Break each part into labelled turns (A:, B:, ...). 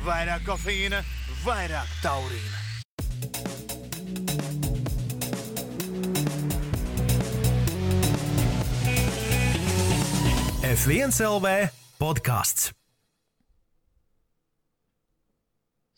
A: Vairāk kofeīna, vairāk taurīna. F1 LV podcasts.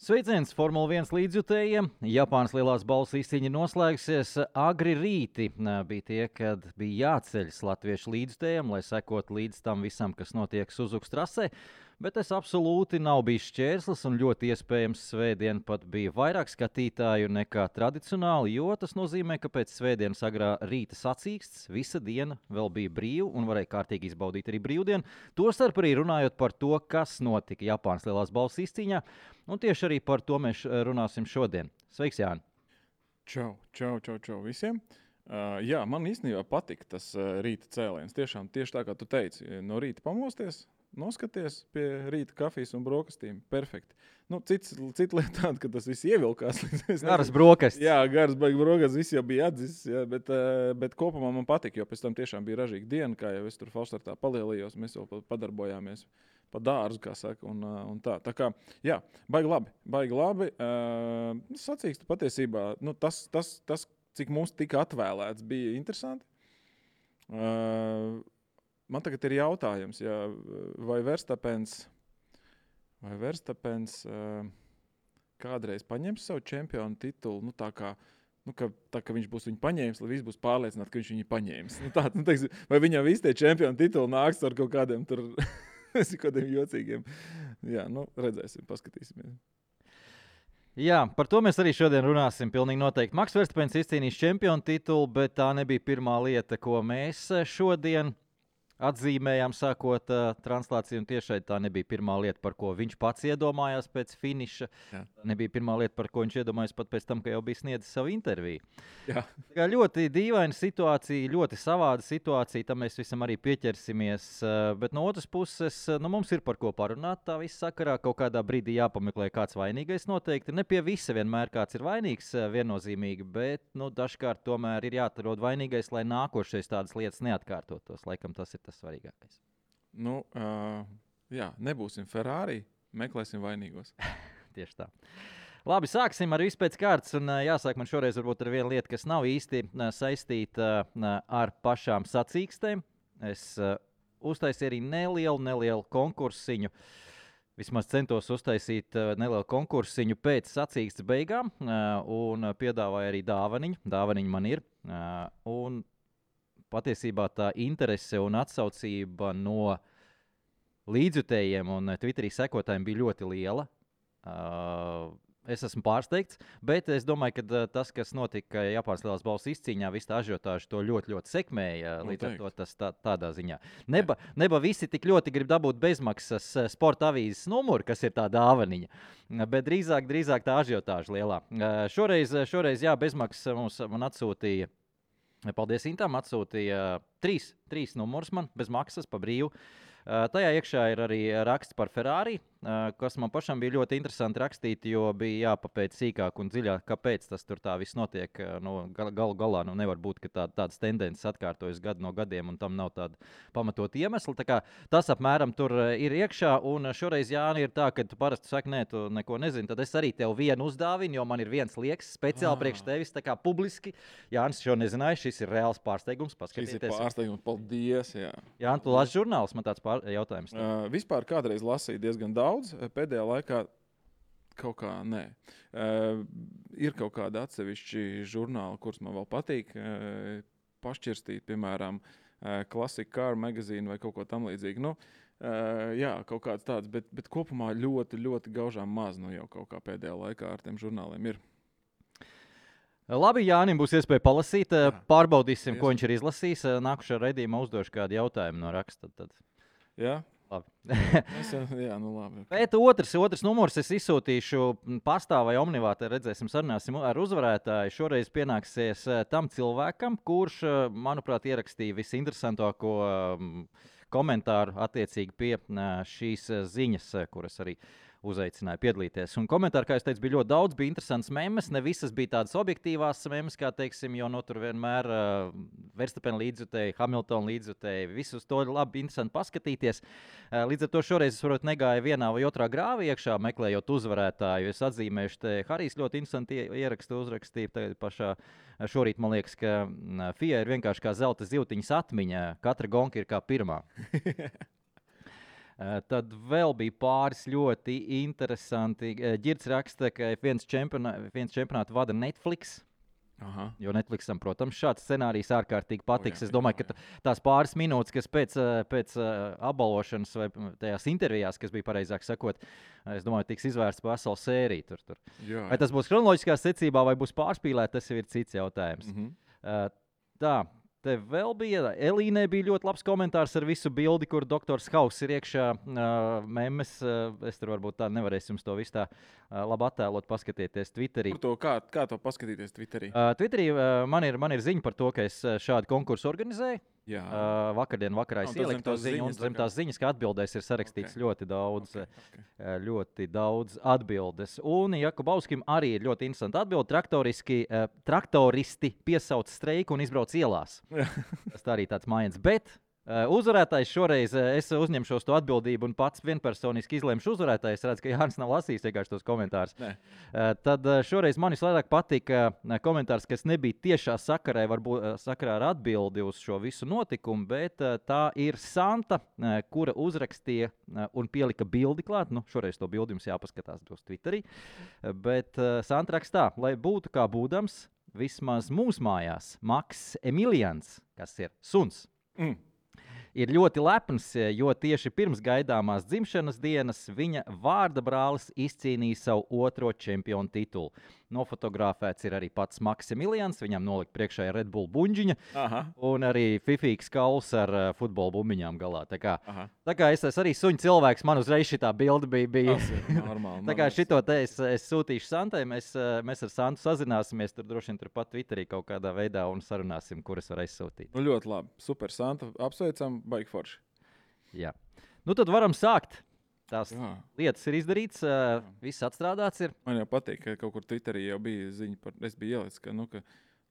B: Sveiciens Formula 1 līdzjutējiem. Japānas lielās balvas izcīņa noslēgsies agri rīti. Bija tie, kad bija jāceļas latviešu līdzjutējiem, lai sekot līdz tam visam, kas notiek Suzukas trasē. Bet tas absolūti nav bijis šķērslis un ļoti iespējams svētdien pat bija vairāk skatītāju nekā tradicionāli, jo tas nozīmē, ka pēc svētdienas agrā rīta sacīksts visa diena vēl bija brīva un varēja kārtīgi izbaudīt arī brīvdienu. Tostarp arī runājot par to, kas notika Japānas lielās balvas izcīņā, un tieši arī par to mēs runāsim šodien. Sveiks, Jāni!
C: Čau visiem! Jā, man īstenībā patika tas rīta cēliens. Tiešām tieši tā, kā tu teici, no rīta pamosties, noskaties pie rīta kafijas un brokastīm. Perfekti. Cita lieta tāda, ka tas viss ievilkās.
B: Garas brokastis.
C: Jā, garas brokastis, viss jau bija atdzis, jā, bet kopumā man patika, jo pēc tam tiešām bija ražīga diena, kā jau es tur Falštartā palielījos, mēs jau padarbojāmies pa dārzu, kā saka, un tā. Tā kā, jā, baigi labi. Sacīkstu patiesībā, tas, cik mums tika atvēlēts, bija interesanti. Man tagad ir jautājums, vai Verstapens kādreiz paņems savu čempionu titulu, tā kā viņš būs viņu paņēmis, lai viss būs pārliecināti, ka viņš viņu paņēmis. Vai viņam visi tie čempionu tituli nāks ar kaut kādiem tur kādiem jocīgiem. Jā, redzēsim, paskatīsimies.
B: Jā, par to mēs arī šodien runāsim. Pilnīgi noteikti. Maks Verstapens izcīnījis čempionu titulu, bet tā nebija pirmā lieta, ko mēs šodien atzīmējām, sākot translāciju, un tiešai tā nebija pirmā lieta, par ko viņš pats iedomājās pēc finiša. Jā. Nebija pirmā lieta, par ko viņš iedomājās pat pēc tam, ka jau bija sniedzis savu interviju.
C: Jā.
B: Tā ļoti dīvaina situācija, ļoti savāda situācija, tam mēs visam arī pieķersimies, bet no otras puses, mums ir par ko parunāt tā visa sakarā, kaut kādā brīdī jāpameklē kāds vainīgais noteikti. Ne pie visa vienmēr kāds ir vainīgs viennozīmīgi, bet dažkārt tomēr ir jāatrod vainīgais, lai nākošais tādas lietas neatkārtotos. Laikam tas ir tas svarīgākais.
C: Jā, nebūsim Ferrari, meklēsim vainīgos.
B: Tieši tā. Labi, sāksim ar visu pēc kārtas, un jāsāk man šoreiz varbūt ar vienu lietu, kas nav īsti saistīta ar pašām sacīkstēm. Es uztaisīju arī nelielu konkursiņu. Vismaz centos uztaisīt nelielu konkursiņu pēc sacīkstes beigām, un piedāvāju arī dāvaniņu. Dāvaniņa man ir. Un patiesībā tā interese un atsaucība no līdzjutējiem un Twitterī sekotājiem bija ļoti liela. Es esmu pārsteigts, bet es domāju, ka tas, kas notika Japānas lielās balvas izcīņā, visu tā ažiotāžu to ļoti sekmēja. Līdz ar to tas tādā ziņā. Neba visi tik ļoti grib dabūt bezmaksas sporta avīzes numuru, kas ir tā dāvaniņa, bet drīzāk tā ažiotāža lielā. Šoreiz jā, bezmaksas man atsūtīja. Paldies Intam, atsūtīja trīs numurus man bez maksas pa brīvu. Tajā iekšā ir arī raksts par Ferrari, kas man pašam bija ļoti interesanti rakstīt, jo bija jāpapēc sīkāk un dziļāk, kāpēc tas tur tā viss notiek. Galu galā nevar būt, ka tādas tendences atkārtojas gadu no gadiem un tam nav tāda pamatot iemesla. Tā kā tas apmēram tur ir iekšā, un šoreiz, Jāni, ir tā, ka tu parasti saki, nē, tu neko nezini, tad es arī tev vienu uzdāvinu, jo man ir viens liekas speciāli priekš tevis, tā kā publiski. Jānis šo nezināja, šis ir reāls pārsteigums. Paskatieties.
C: Šis ir pārsteigums, paldies, jā.
B: Jāni, tu lasi žurnālus, man tāds jautājums.
C: Vispār kādreiz lasīju diezgan daudz, pēdējā laikā kaut kā nē. Ir kaut kādi atsevišķi žurnāli, kurus man vēl patīk pašķirstīt, piemēram, Classic Car Magazine vai kaut ko tam līdzīgi. Jā, kaut kāds tāds, bet kopumā ļoti gaužām maz jau kaut kā pēdējā laikā ar tiem žurnāliem ir.
B: Labi, Jānim būs iespēja palasīt, pārbaudīsim, ko viņš ir izlasījis. Nākušā raidījumā uzdošu kādu jautājumu no raksta. Tad.
C: Jā?
B: Labi.
C: Labi.
B: Bet otrs numurs es izsūtīšu pastā vai omnivā, redzēsim, sarunāsim ar uzvarētāju. Šoreiz pienāksies tam cilvēkam, kurš, manuprāt, ierakstīja visinteresantāko komentāru attiecīgi pie šīs ziņas, kuras arī uzaicināja piedalīties. Un komentāri, kā es teicu, bija ļoti daudz, bija interesants memes, ne visas bija tādas objektīvās memes, kā teiksim, jo tur vienmēr Verstappen līdzjutēji, Hamilton līdzjutēji, visus to labi interesanti paskatīties. Līdz ar to šoreiz es varbūt negāju vienā vai otrā grāvī iekšā, meklējot uzvarētāju. Es atzīmēšu, te Harijs ļoti interesanti ierakstu uzrakstīja tagad pašā šorīt, man liekas, ka FIA ir vienkārši kā zelta zivtiņas atmiņa, katra gonka ir kā pirmā. Tad vēl bija pāris ļoti interesanti. Ģirds raksta, ka viens čempionātu vada Netflix.
C: Aha.
B: Jo Netflixam, protams, šāds scenārijs ārkārtīgi patiks. Es domāju, ka tās pāris minūtes, kas pēc apbalvošanas vai tajās intervijās, kas bija pareizāk sakot, es domāju, tiks izvērsts pa veselu sēriju. Tur.
C: Jā.
B: Vai tas būs kronoloģiskā secībā vai būs pārspīlēt, tas jau ir cits jautājums. Tā. Te vēl bija, Elīnē bija ļoti labs komentārs ar visu bildi, kur doktors Hauss ir iekšā memes. Es tur varbūt tā nevarēšu jums to visu tā labi attēlot, paskatieties Twitterī.
C: Kā to paskatīties Twitterī?
B: Twitterī man ir ziņa par to, ka es šādu konkursu organizēju.
C: Jā.
B: Vakardien vakarā es ieliku to ziņu, un zem tās ziņas, ka atbildēs ir sarakstīts ļoti daudz atbildes. Un Jakubovskim arī ir ļoti interesanti atbildi. Traktoristi piesauc streiku un izbrauc ielās. Tas tā arī tāds mājiens. Bet uzvarētājs šoreiz es uzņemšos to atbildību un pats vienpersoniski izlemšu uzvarētāju. Es redzu, ka Jānis nav lasījis vienkārši tos komentārus. Tad šoreiz man visvairāk patika komentārs, kas nebija tiešā sakarā ar atbildi uz šo visu notikumu, bet tā ir Santa, kura uzrakstīja un pielika bildi klāt. Šoreiz to bildi jums jāpaskatās uz Twitterī. Bet Santa rakstā, lai būtu kā būdams, vismaz mūsu mājās Maks Emilians, kas ir suns, ir ļoti lepns, jo tieši pirms gaidāmās dzimšanas dienas viņa vārda brālis izcīnīja savu otro čempionu titulu. Nofotografēts ir arī pats Maksimilians, viņam nolikt priekšā Red Bull buņģiņa. Aha. Un arī fifīgs kauls ar futbola bumbiņām galā. Tā kā es esmu arī suņu cilvēks, man uzreiz šitā bilde bija.
C: Normāli.
B: Tā kā šito te es sūtīšu Santai, mēs ar Santu sazināsimies, tur droši vien turpat Twitterī kaut kādā veidā un sarunāsim, kuras var aizsūtīt.
C: Ļoti labi, super Santa, apsveicam, baigi forši.
B: Jā. Tad varam sākt. Tās lietas ir izdarītas, viss atstrādāts ir.
C: Man jau patīk, ka kaut kur Twitterī jau bija ziņa par, es biju ielicis, ka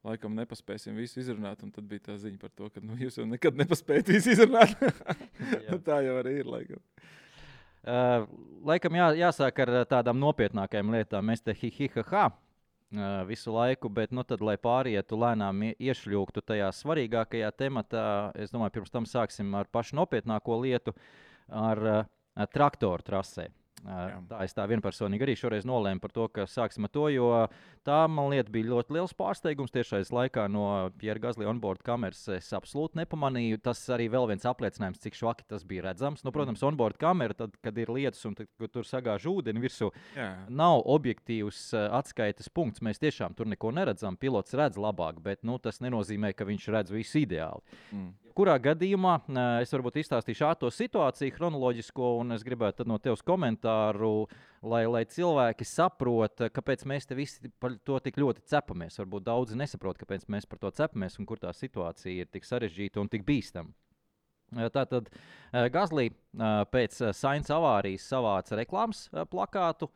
C: laikam nepaspēsim visu izrunāt, un tad bija tā ziņa par to, ka jūs jau nekad nepaspējat visu izrunāt. Tā jau arī ir, laikam.
B: Laikam jāsāk ar tādām nopietnākajām lietām. Mēs te hi-hi-ha-ha visu laiku, bet tad, lai pārietu lēnām iešļūgtu tajā svarīgākajā tematā, es domāju, pirms tam sāksim ar pašu nopietnāko lietu, ar traktoru trasē. Es tā vienpersonīgi arī šoreiz nolēmu par to, ka sāksim ar to, jo tā, man lieta, bija ļoti liels pārsteigums. Tiešais laikā no Pierre Gasly onboard kameras es absolūti nepamanīju. Tas arī vēl viens apliecinājums, cik švaki tas bija redzams. Protams, onboard kamera, tad, kad ir lietus un kad tur sagāž ūdeni virsū, nav objektīvs atskaites punkts. Mēs tiešām tur neko neredzam. Pilots redz labāk, bet tas nenozīmē, ka viņš redz visu ideāli. Kurā gadījumā es varbūt izstāstīšu ātro situāciju, chronoloģisko, un es gribētu no tevis komentāru, lai cilvēki saprot, kāpēc mēs te visi par to tik ļoti cepamies. Varbūt daudzi nesaprot, kāpēc mēs par to cepamies un kur tā situācija ir tik sarežģīta un tik bīstama. Tātad Gasly pēc Sainz avārijas savāca reklāmas plakātu,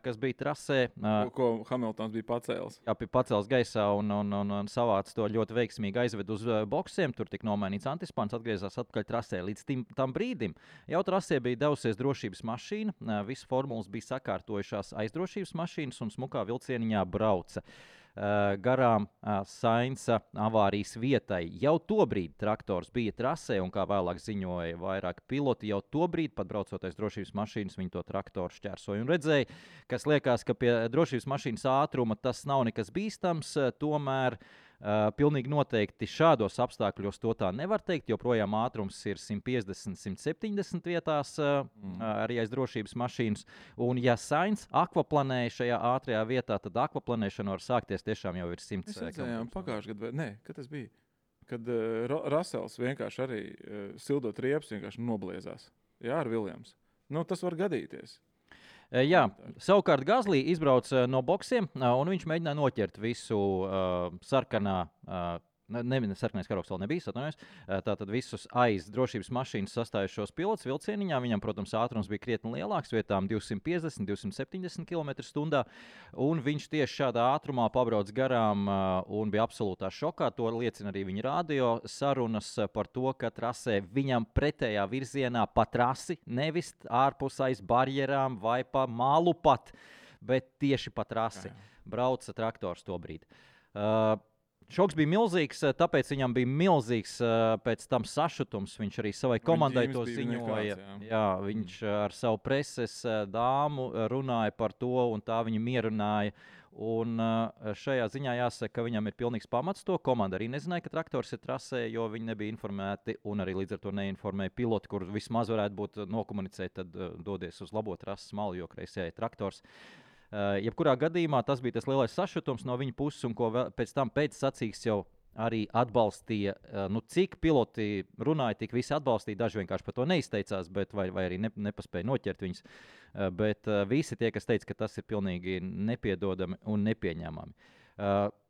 B: kas bija trasē.
C: Ko Hamiltons bija pacēlis.
B: Jā, bija pacēlis gaisā un savāca to ļoti veiksmīgi aizved uz boksiem. Tur tika nomainīts antispāns, atgriezās atpakaļ trasē. Līdz tam brīdim jau trasē bija devusies drošības mašīna. Visas formulas bija sakārtojušās aizdrošības mašīnas un smukā vilcieniņā brauca garām Sainza avārijas vietai. Jau tobrīd traktors bija trasē, un kā vēlāk ziņoja vairāk piloti, jau tobrīd, pat braucoties drošības mašīnas, viņi to traktoru šķērsoja un redzēja, kas liekas, ka pie drošības mašīnas ātruma tas nav nekas bīstams, tomēr pilnīgi noteikti šādos apstākļos to tā nevar teikt, jo projām ātrums ir 150-170 vietās arī aiz drošības mašīnas. Un ja Sainz akvaplanēja šajā ātrajā vietā, tad akvaplanēšana var sākties tiešām jau ir 100
C: km. Mēs redzējām pagājušajā gadā, kad tas bija? Kad Russells vienkārši arī sildot riepas vienkārši nobliezās. Jā, ar Viljams. Tas var gadīties.
B: Jā, savukārt Gasly izbrauca no boksiem, un viņš mēģināja noķert visu sarkanā Sarkanais karogs vēl nebija, atvainojos. Tātad visus aiz drošības mašīnas sastājušos pilotus vilcieniņā. Viņam, protams, ātrums bija krietni lielāks, vietām 250, 270 km/h. Un viņš tieši šādā ātrumā pabrauc garām un bija absolūtā šokā. To liecina arī viņa radio sarunas par to, ka trasē viņam pretējā virzienā pa trasi, nevis ārpus aiz barjerām vai pa malu pat, bet tieši pa trasi brauca traktors to brīdi. Šoks bija milzīgs, tāpēc viņam bija milzīgs pēc tam sašutums. Viņš arī savai komandai to ziņoja. Jā, viņš ar savu preses dāmu runāja par to, un tā viņu mierināja. Un šajā ziņā jāsaka, ka viņam ir pilnīgs pamats to. Komanda arī nezināja, ka traktors ir trasē, jo viņi nebija informēti, un arī līdz ar to neinformēja pilotu, kur vismaz varētu būt nokomunicēt, tad dodies uz labo trases malu, jo kreisajā ir traktors. Jebkurā gadījumā tas bija tas lielais sašutums no viņa puses, un ko pēc tam pēc sacīks jau arī atbalstīja. Cik piloti runāja, tik visi atbalstīja. Daži vienkārši par to neizteicās, bet vai arī nepaspēja noķert viņus. Bet visi tie, kas teica, ka tas ir pilnīgi nepiedodami un nepieņemami.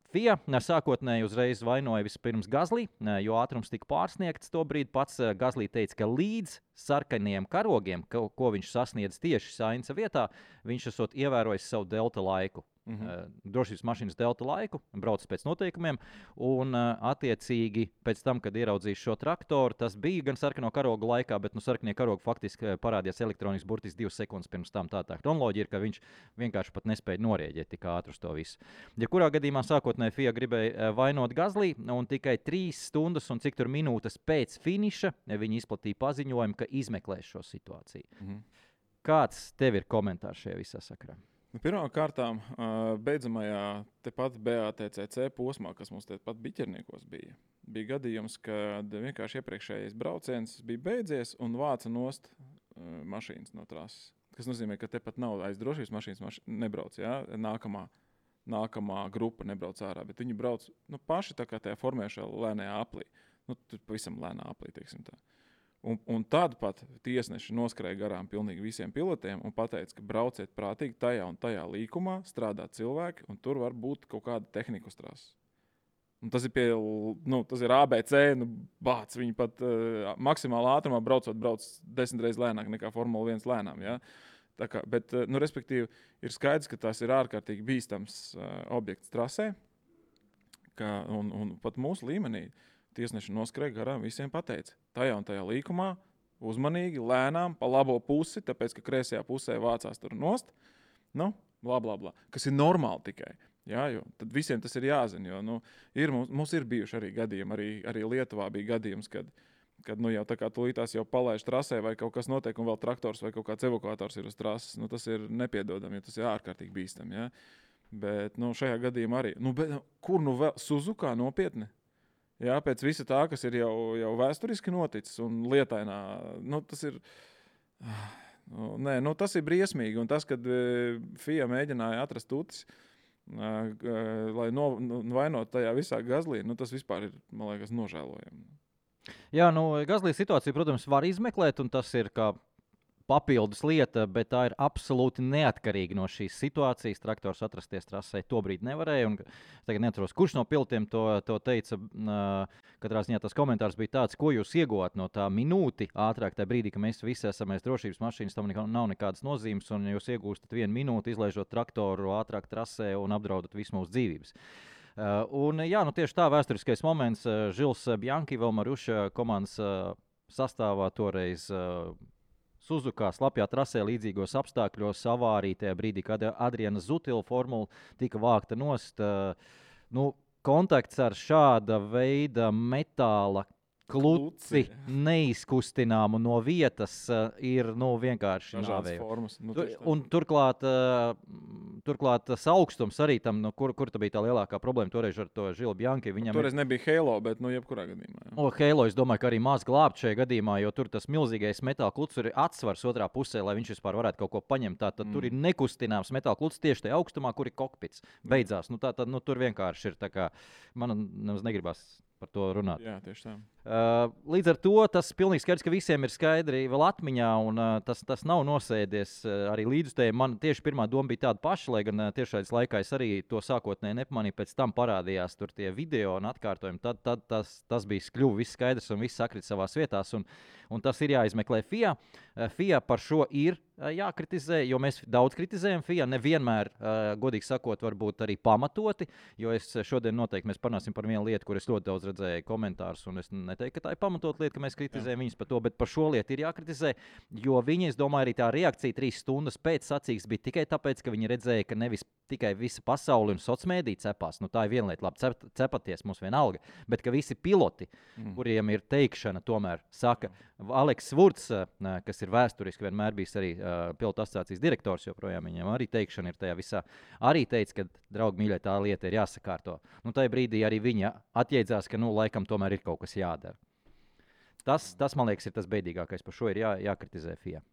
B: FIA sākotnēji uzreiz vainoja vispirms Gazlī, jo ātrums tika pārsniegts. Tobrīd pats Gazlī teica, ka līdz sarkanajiem karogiem, ko viņš sasniedz tieši Sainza vietā, viņš esot ievērojis savu delta laiku. Drošības mašīnas delta laiku, brauc pēc noteikumiem, un attiecīgi pēc tam, kad ieraudzījis šo traktoru, tas bija gan sarkano karogu laikā, bet sarkanie karogi faktiski parādījās elektronisks burtiski 2 sekundes pirms tam. Tā kronoloģija ir, ka viņš vienkārši pat nespēja norēģēt tik ātri uz to visu. Jebkurā gadījumā sākotnēji FIA gribēja vainot Gazlī, un tikai 3 stundas un cik tur minūtes pēc finiša viņi izplatīja paziņojumu, ka izmeklēs šo situāciju. Kāds tev ir komentārs šajā visā sakarā?
C: Pirmkārt, beidzamajā tepat BATCC posmā, kas mums tepat Biķerniekos bija gadījums, kad vienkārši iepriekšējais brauciens bija beidzies un vāca nost mašīnas no trases. Tas nozīmē, ka tepat nav aiz drošības mašīnas nebrauc, ja? Nākamā grupa nebrauc ārā, bet viņi brauc paši tā kā tajā formēšā lēnajā aplī. Tur pavisam lēnā aplī, teiksim tā. Un tad pat tiesneši noskrēja garām pilnīgi visiem pilotiem un pateica, ka brauciet prātīgi tajā un tajā līkumā, strādā cilvēki, un tur var būt kaut kāda tehnika uz trases. Tas ir tas ir ABC, bāc, viņi pat maksimāli ātrumā brauc 10 reizes lēnāk nekā Formula 1 lēnām. Ja? Bet, respektīvi, ir skaidrs, ka tas ir ārkārtīgi bīstams objekts trasē, un pat mūsu līmenī tiesneši noskrēja garām, visiem pateica. Tajā un tajā līkumā uzmanīgi, lēnām, pa labo pusi, tāpēc, ka kreisajā pusē vācās tur nost, blā, blā, blā. Kas ir normāli tikai. Jā, jo tad visiem tas ir jāzina, jo mums ir bijuši arī gadījumi, arī Lietuvā bija gadījums, kad jau tā kā tūlītās jau palaiž trasē vai kaut kas notiek un vēl traktors vai kaut kāds evakuators ir uz trases, tas ir nepiedodami, jo tas ir ārkārtīgi bīstam. Ja? Bet šajā gadījumā arī. Kur vēl? Suzukā nopietni? Jā, pēc visa tā, kas ir jau vēsturiski noticis un lietainā, tas ir, tas ir briesmīgi. Un tas, kad FIA mēģināja atrast tutis, lai vainot tajā visā Gazlī, tas vispār ir, man liekas, nožēlojami.
B: Jā, Gazlī situāciju, protams, var izmeklēt, un tas ir kā papildus lieta, bet tā ir absolūti neatkarīga no šīs situācijas. Traktors atrasties trasē tobrīd nevarēja. Es tagad neatceros, kurš no pilotiem to teica. Katrā ziņā tas komentārs bija tāds, ko jūs ieguvāt no tā minūti ātrāk, tajā brīdī, ka mēs visi esam aiz drošības mašīnas, tam nav nekādas nozīmes, un jūs iegūstat 1 minūti, izlaižot traktoru ātrāk trasē un apdraudat visu mūsu dzīvības. Tieši tā vēsturiskais moments. Žils Bjanki, vēl Maruša komandas sastāvā toreiz Suzukā slapjā trasē līdzīgos apstākļos avārija tajā brīdī, kad Adriana Zutila formula tika vākta nost. Kontakts ar šāda veida metāla kluci neizkustināmu no vietas ir vienkārši nāvējoši. Un turklāt augstums arī tam, kur tā bija tā lielākā problēma toreiz ar to Žilu Bjanki.
C: Toreiz nebija Halo, bet jebkurā gadījumā.
B: Halo, es domāju, ka arī maz glābt šajā gadījumā, jo tur tas milzīgais metāla klucis ir atsvars otrā pusē, lai viņš vispār varētu kaut ko paņemt. Tātad tur ir nekustināms metāla klucis tieši tajā augstumā, kur ir kokpits. Beidzās. Tur vienkārši ir tā kā, man negribas par to runāt.
C: Jā, tieši tā.
B: Līdz ar to tas pilnīgi skaidrs, ka visiem ir skaidri vēl atmiņā, un tas nav nosēdies arī līdzutējiem. Man tieši pirmā doma bija tāda paša, lai gan tiešais laikā es arī to sākotnēji nepamanīju, pēc tam parādījās tur tie video un atkārtojumi. Tad tas bija kļuvis viss skaidrs un viss sakrit savās vietās, un tas ir jāizmeklē FIA. FIA par šo ir jākritizē, jo mēs daudz kritizējam FIA, nevienmēr, godīgi sakot, varbūt arī pamatoti, jo es šodien noteikti mēs parunāsim par vienu lietu, kur es ļoti daudz redzēju komentārus, un es neteiktu, ka tā ir pamatot lieta, ka mēs kritizējam viņus par to, bet par šo lietu ir jākritizē, jo viņi, es domāju, arī tā reakcija 3 stundas pēc sacīkstes bija tikai tāpēc, ka viņi redzēja, ka nevis tikai visa pasaule un sociālmediji cepās, nu tā ir viena lieta, labi, cepaties mums vienalga, bet ka visi piloti, kuriem ir teikšana, tomēr saka, Aleks Vurts, kas ir vēsturiski vienmēr bijis arī pilotu asociācijas direktors, joprojām viņam arī teikšana ir tajā visā, arī teica, ka, draugi mīļie, tā lieta ir jāsakārto. Nu, tajā brīdī arī viņa atjēdzās, ka, nu, laikam tomēr ir kaut kas jādara. Tas man liekas, ir tas beidīgākais, par šo ir jākritizē FIA.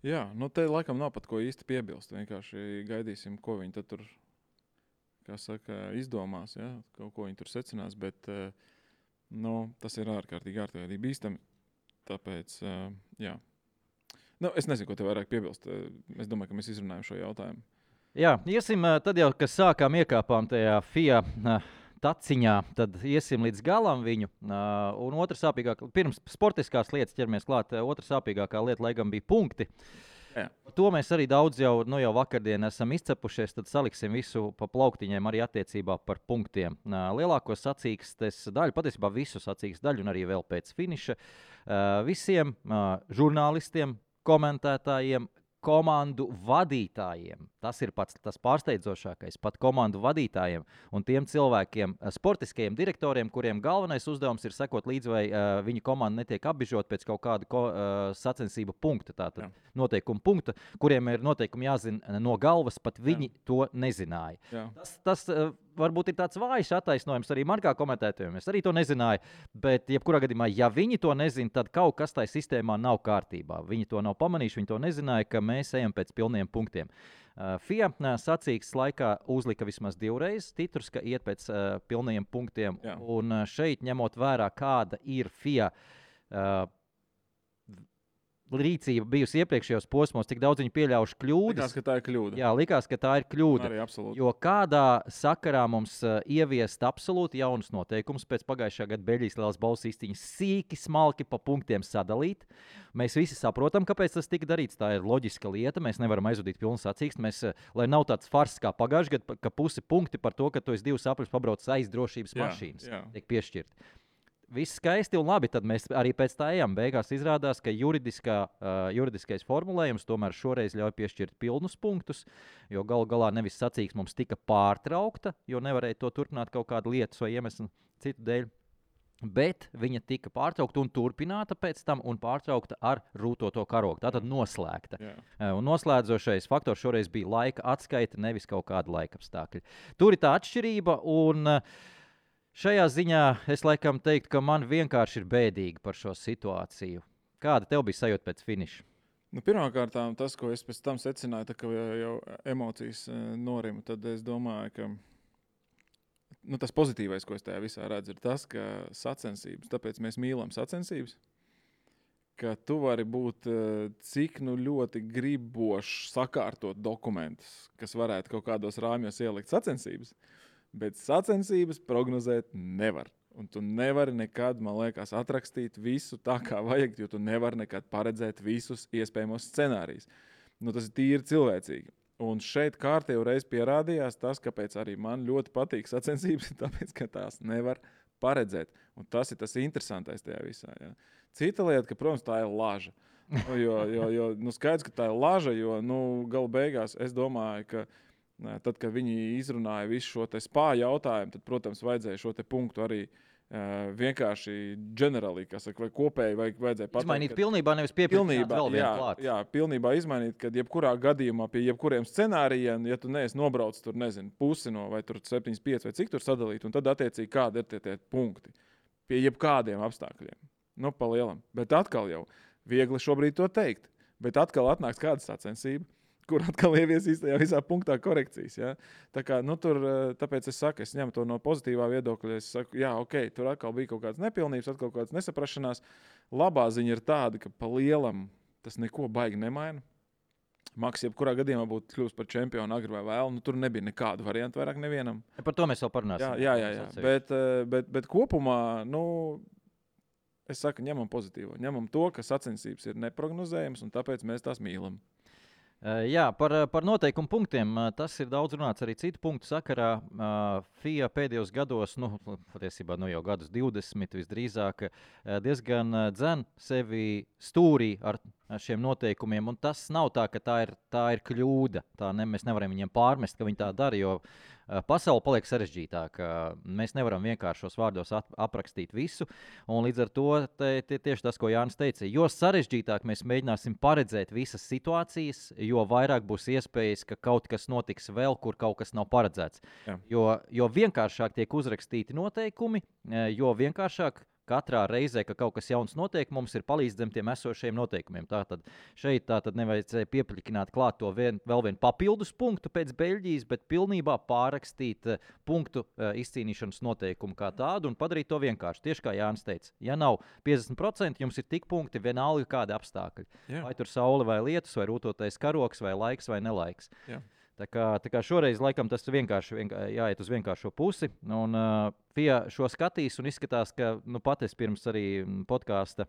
C: Jā, nu te laikam nav pat ko īsti piebilst, vienkārši gaidīsim, ko viņi tad tur, kā saka, izdomās, ja? Kaut ko viņi tur secinās, bet, nu, tas ir ārkārtīgi bīstami, tāpēc, jā. Nu, es nezinu, ko te vairāk piebilst. Es domāju, ka mēs izrunājam šo jautājumu.
B: Jā, iesim tad jau, kad iekāpām tajā FIA taciņā, tad iesim līdz galam viņu. Un otra sāpīgākā, pirms sportiskās lietas ķeramies klāt, otra sāpīgākā lieta, lai gan bija punkti.
C: Jā.
B: To mēs arī daudz jau vakardien esam izcepušies, tad saliksim visu pa plauktiņiem arī attiecībā par punktiem. Lielāko sacīkstes daļu, patiesībā visu sacīkstes daļu un arī vēl pēc finiša, visiem žurnālistiem, komentētājiem, komandu vadītājiem. Tas ir pats tas pārsteidzošākais, pat komandu vadītājiem un tiem cilvēkiem, sportiskajiem direktoriem, kuriem galvenais uzdevums ir sekot līdzi, vai viņa komanda netiek apbižot pēc kaut kāda sacensību punkta, tātad noteikuma punkta, kuriem ir noteikumi jāzina no galvas, pat viņi to nezināja. Tas varbūt ir tāds vājš attaisnojums arī man kā komentētājiem. Es arī to nezināju, bet jebkurā gadījumā, ja viņi to nezina, tad kaut kas tajā sistēmā nav kārtībā. Viņi to nav pamanījuši, viņi to nezināja, ka mēs ejam pēc pilniem punktiem. FIA sacīkstes laikā uzlika vismaz 2 reizes titrus, ka iet pēc pilniem punktiem. Jā. Un šeit, ņemot vērā, kāda ir FIA rīcība bijusi iepriekšējos posmos, cik daudz viņi pieļaujuši kļūdas.
C: Likās, ka tā ir kļūda.
B: Jā, likās, ka tā ir kļūda.
C: Arī absolūti.
B: Jo kādā sakarā mums ieviest absolūti jaunus noteikumus pēc pagājušā gada Beļģijas lielās balvas izcīņas sīki, smalki pa punktiem sadalīt. Mēs visi saprotam, kāpēc tas tika darīts. Tā ir loģiska lieta. Mēs nevaram aizvadīt pilnu sacīksti. Lai nav tāds fars kā pagājušajā gadā, ka pusi punkti par to, ka tu esi 2 apļus pabraucis aiz drošības mašīnas, tiek piešķirti. Viss skaisti un labi, tad mēs arī pēc tā ejam. Beigās izrādās, ka juridiskais formulējums tomēr šoreiz ļauj piešķirt pilnus punktus, jo galu galā nevis sacīksme mums tika pārtraukta, jo nevarēja to turpināt kaut kādu lietas vai iemeslu citu dēļ. Bet viņa tika pārtraukta un turpināta pēc tam un pārtraukta ar rūtoto karogu. Tātad noslēgta. Un noslēdzošais faktors šoreiz bija laika atskaita, nevis kaut kāda laika apstākļa. Tur ir tā atšķirība un šajā ziņā es laikam teiktu, ka man vienkārši ir bēdīgi par šo situāciju. Kāda tev bija sajūta pēc finiša?
C: Nu, pirmkārt, tas, ko es pēc tam secināju, ka jau emocijas norima, tad es domāju, ka tas pozitīvais, ko es tajā visā redzu, ir tas, ka sacensības, tāpēc mēs mīlam sacensības, ka tu vari būt cik ļoti gribošs sakārtot dokumentus, kas varētu kaut kādos rāmjos ielikt sacensības, bet sacensības prognozēt nevar. Un tu nevari nekad, man liekas, atrakstīt visu tā, kā vajag, jo tu nevari nekad paredzēt visus iespējamos scenārijus. Tas ir tīri cilvēcīgi. Un šeit kārtējo reizi pierādījās tas, kāpēc arī man ļoti patīk sacensības, tāpēc, ka tās nevar paredzēt. Un tas ir tas interesantais tajā visā. Ja. Cita lieta, ka, protams, tā ir laža. Jo skaidrs, ka tā ir laža, jo gala beigās es domāju, ka tad, kad viņi izrunāja visu šo te spā jautājumu, tad, protams, vajadzēja šo te punktu arī vienkārši ģenerāli, vai kopēji vajadzēja pateikt.
B: Izmainīt pilnībā, nevis piepildīt vēl vienu klāt.
C: Jā, pilnībā izmainīt, kad jebkurā gadījumā pie jebkuriem scenārijiem, ja tu neesi nobraucis tur, pusi no vai tur 75 vai cik tur sadalīt, un tad attiecīgi kādi ir tie punkti pie jebkādiem apstākļiem. Pa lielam. Bet atkal jau viegli šobrīd to teikt. Bet atkal atnāks kāda sacensība, kur atkal ieviesīs tajā visā punktā korekcijas. Ja? Tā kā, tāpēc es saku, es ņemu to no pozitīvā viedokļa. Es saku, jā, ok, tur atkal bija kaut kādas nepilnības, atkal kaut kādas nesaprašanās. Labā ziņa ir tāda, ka pa lielam tas neko baigi nemaina. Maks, jebkurā gadījumā būtu kļūst par čempionu agri vai vēl, tur nebija nekādu variantu vairāk nevienam.
B: Par to mēs vēl parunāsim.
C: Jā. Bet kopumā, es saku, ņemam pozitīvo. Ņemam to, ka sacensības ir neprognozējams, un tāpēc mēs tās mīlam.
B: Jā, par noteikumu punktiem. Tas ir daudz runāts arī citu punktu sakarā. FIA pēdējos gados, patiesībā jau gadus 20 visdrīzāk, diezgan dzen sevi stūrī ar šiem noteikumiem. Un tas nav tā, ka tā ir kļūda. Mēs nevaram viņiem pārmest, ka viņi tā dara, jo pasaule paliek sarežģītāka. Mēs nevaram vienkāršos vārdos aprakstīt visu. Un līdz ar to tieši tas, ko Jānis teica, jo sarežģītāk mēs mēģināsim paredzēt visas situācijas, jo vairāk būs iespējas, ka kaut kas notiks vēl, kur kaut kas nav paredzēts. Jā. Jo vienkāršāk tiek uzrakstīti noteikumi, jo vienkāršāk katrā reizē, ka kaut kas jauns notiek, mums ir palīdz zem tiem esošajiem noteikumiem. Tātad šeit nevajadzēja piepļikināt klāt to vēl vienu papildus punktu pēc Beļģijas, bet pilnībā pārrakstīt punktu izcīnīšanas noteikumu kā tādu un padarīt to vienkārši. Tieši kā Jānis teica, ja nav 50%, jums ir tik punkti vienalga kādi apstākļi. Jā. Vai tur saule vai lietus, vai rūtotais karoks, vai laiks vai nelaiks. Jā. Tā kā šoreiz laikam tas vienkārši jāiet uz vienkāršo pusi. Un FIA šo skatīs un izskatās, ka pat es pirms arī podkāsta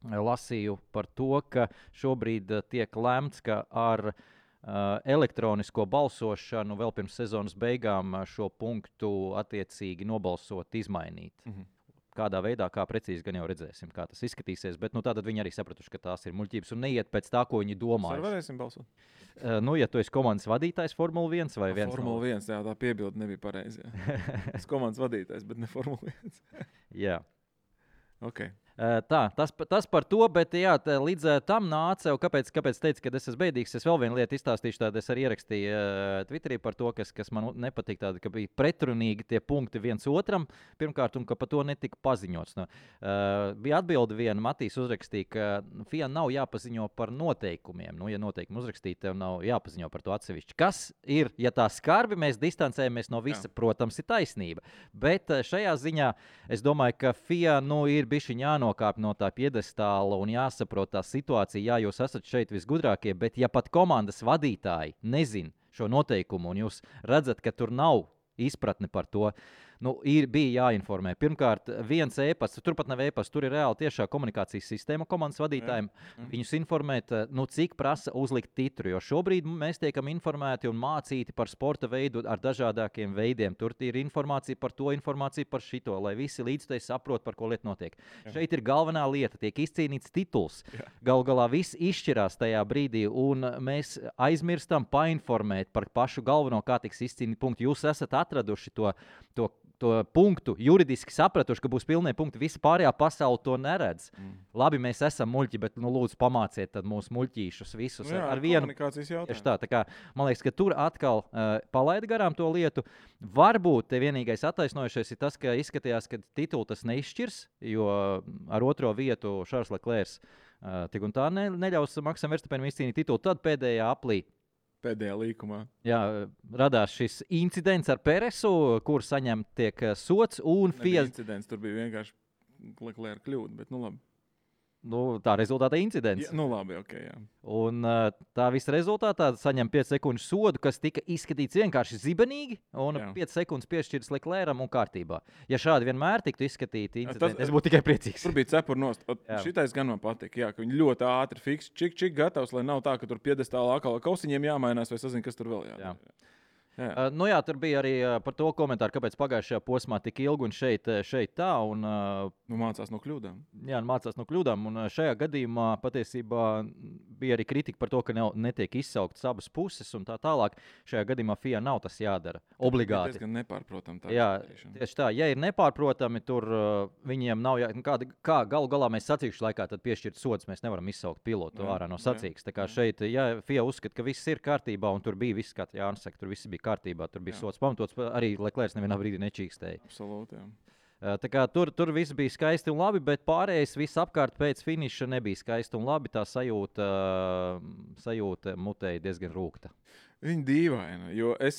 B: lasīju par to, ka šobrīd tiek lemts, ka ar elektronisko balsošanu vēl pirms sezonas beigām šo punktu attiecīgi nobalsot, izmainīt. Mhm. Kādā veidā, kā precīzi gan jau redzēsim, kā tas izskatīsies. Bet tātad viņi arī sapratuši, ka tās ir muļķības un neiet pēc tā, ko viņi domā.
C: Mēs varēsim balsot.
B: Ja tu esi komandas vadītājs Formula 1 vai 1?
C: Formula 1, jā, tā piebilde nebija pareizi. Es komandas vadītājs, bet ne Formula 1.
B: Jā.
C: Ok.
B: Tas par to, bet jā, līdz tam nāca, kāpēc teicu, ka es esmu bēdīgs, es vēl vienu lietu izstāstīšu, tādu es arī ierakstīju Twitterī par to, kas man nepatīk, tāda, ka bija pretrunīgi tie punkti viens otram, pirmkārt, un ka par to netika paziņots. Bija atbilde viena, Matīs uzrakstīja, ka FIA nav jāpaziņo par noteikumiem. Ja noteikumi uzrakstīti, tev nav jāpaziņo par to atsevišķi. Kas ir, ja tā skarbi mēs distancējamies no visa, protams, ir taisnība. Bet šajā ziņā es domāju, ka FIA ir bišķiņ jānokāp no tā piedestāla un jāsaprot tā situācija. Jā, jūs esat šeit visgudrākie, bet ja pat komandas vadītāji nezin šo noteikumu un jūs redzat, ka tur nav izpratne par to, bija jāinformē. Pirmkārt, viens e-pasts, turpat nav e-pasts, tur ir reāli tiešā komunikācijas sistēma komandas vadītājiem. Viņus informēt, cik prasa uzlikt titru, jo šobrīd mēs tiekam informēti un mācīti par sporta veidu ar dažādākiem veidiem. Tur ir informācija par to, informācija par šito, lai visi līdzteji saprot, par ko lieta notiek. Jā. Šeit ir galvenā lieta, tiek izcīnīts tituls. Galu galā viss izšķirās tajā brīdī, un mēs aizmirstam painformēt par pašu galveno, kā tiks izcīnīt punktu. Jūs esat atraduši to punktu, juridiski sapratuši, ka būs pilnie punkti. Visa pārējā pasaule to neredz. Labi, mēs esam muļķi, bet lūdzu pamāciet tad mūsu muļķīšus visus ar vienu
C: komunikācijas jautājumu.
B: Tā kā, man liekas, ka tur atkal palaida garām to lietu. Varbūt te vienīgais attaisnojušais ir tas, ka izskatījās, ka titulu tas neizšķirs, jo ar otro vietu Charles Leclerc tik un tā neļaus Maksam Verstappenam izcīnīt titulu. Tad pēdējā aplī.
C: Pēdējā līkumā.
B: Jā, radās šis incidents ar Peresu, kur tiek sots.
C: FIA incidents, tur bija vienkārši Leclerc kļūda, bet labi.
B: Tā rezultātā incidents.
C: Jā, labi, ok, jā.
B: Un tā visa rezultātā saņem 5 sekundžu sodu, kas tika izskatīts vienkārši zibenīgi, un 5 sekundes piešķirts Leclercam un kārtībā. Ja šādi vienmēr tiktu izskatīti incidenti, es būtu tikai priecīgs.
C: Tur bija cepur nost. Šitais gan man patīk, ka viņi ļoti ātri fiks, čik gatavs, lai nav tā, ka tur piedestālā atkal kausiņiem jāmainās, vai sazin, kas tur vēl jādara.
B: Jā. Tur bija arī par to komentāru, kāpēc pagājušajā posmā tik ilgi un šeit tā. Un,
C: mācās no kļūdām.
B: Jā, mācās no kļūdām. Un šajā gadījumā patiesībā bija arī kritika par to, ka netiek izsauktas abas puses un tā tālāk. Šajā gadījumā FIA nav tas jādara obligāti.
C: Tas diezgan nepārprotami.
B: Jā, tieši tā. Ja ir nepārprotami, tur viņiem nav kā galu galā mēs sacīkšu laikā tad piešķirt sods. Mēs nevaram izsaukt pilotu ārā no sacīks. Tā kā šeit, FIA uzskata, ka viss ir kārtībā un tur bija viss, kā Jānis saka, tur viss bija kārtībā, tur bija sots pamatots, arī Leclerc nevienā brīdī nečīkstēja.
C: Absolūti, jā.
B: Tā kā tur viss bija skaisti un labi, bet pārējais viss apkārt pēc finiša nebija skaisti un labi. Tā sajūta mutēja diezgan rūgta.
C: Viņa dīvaina, jo es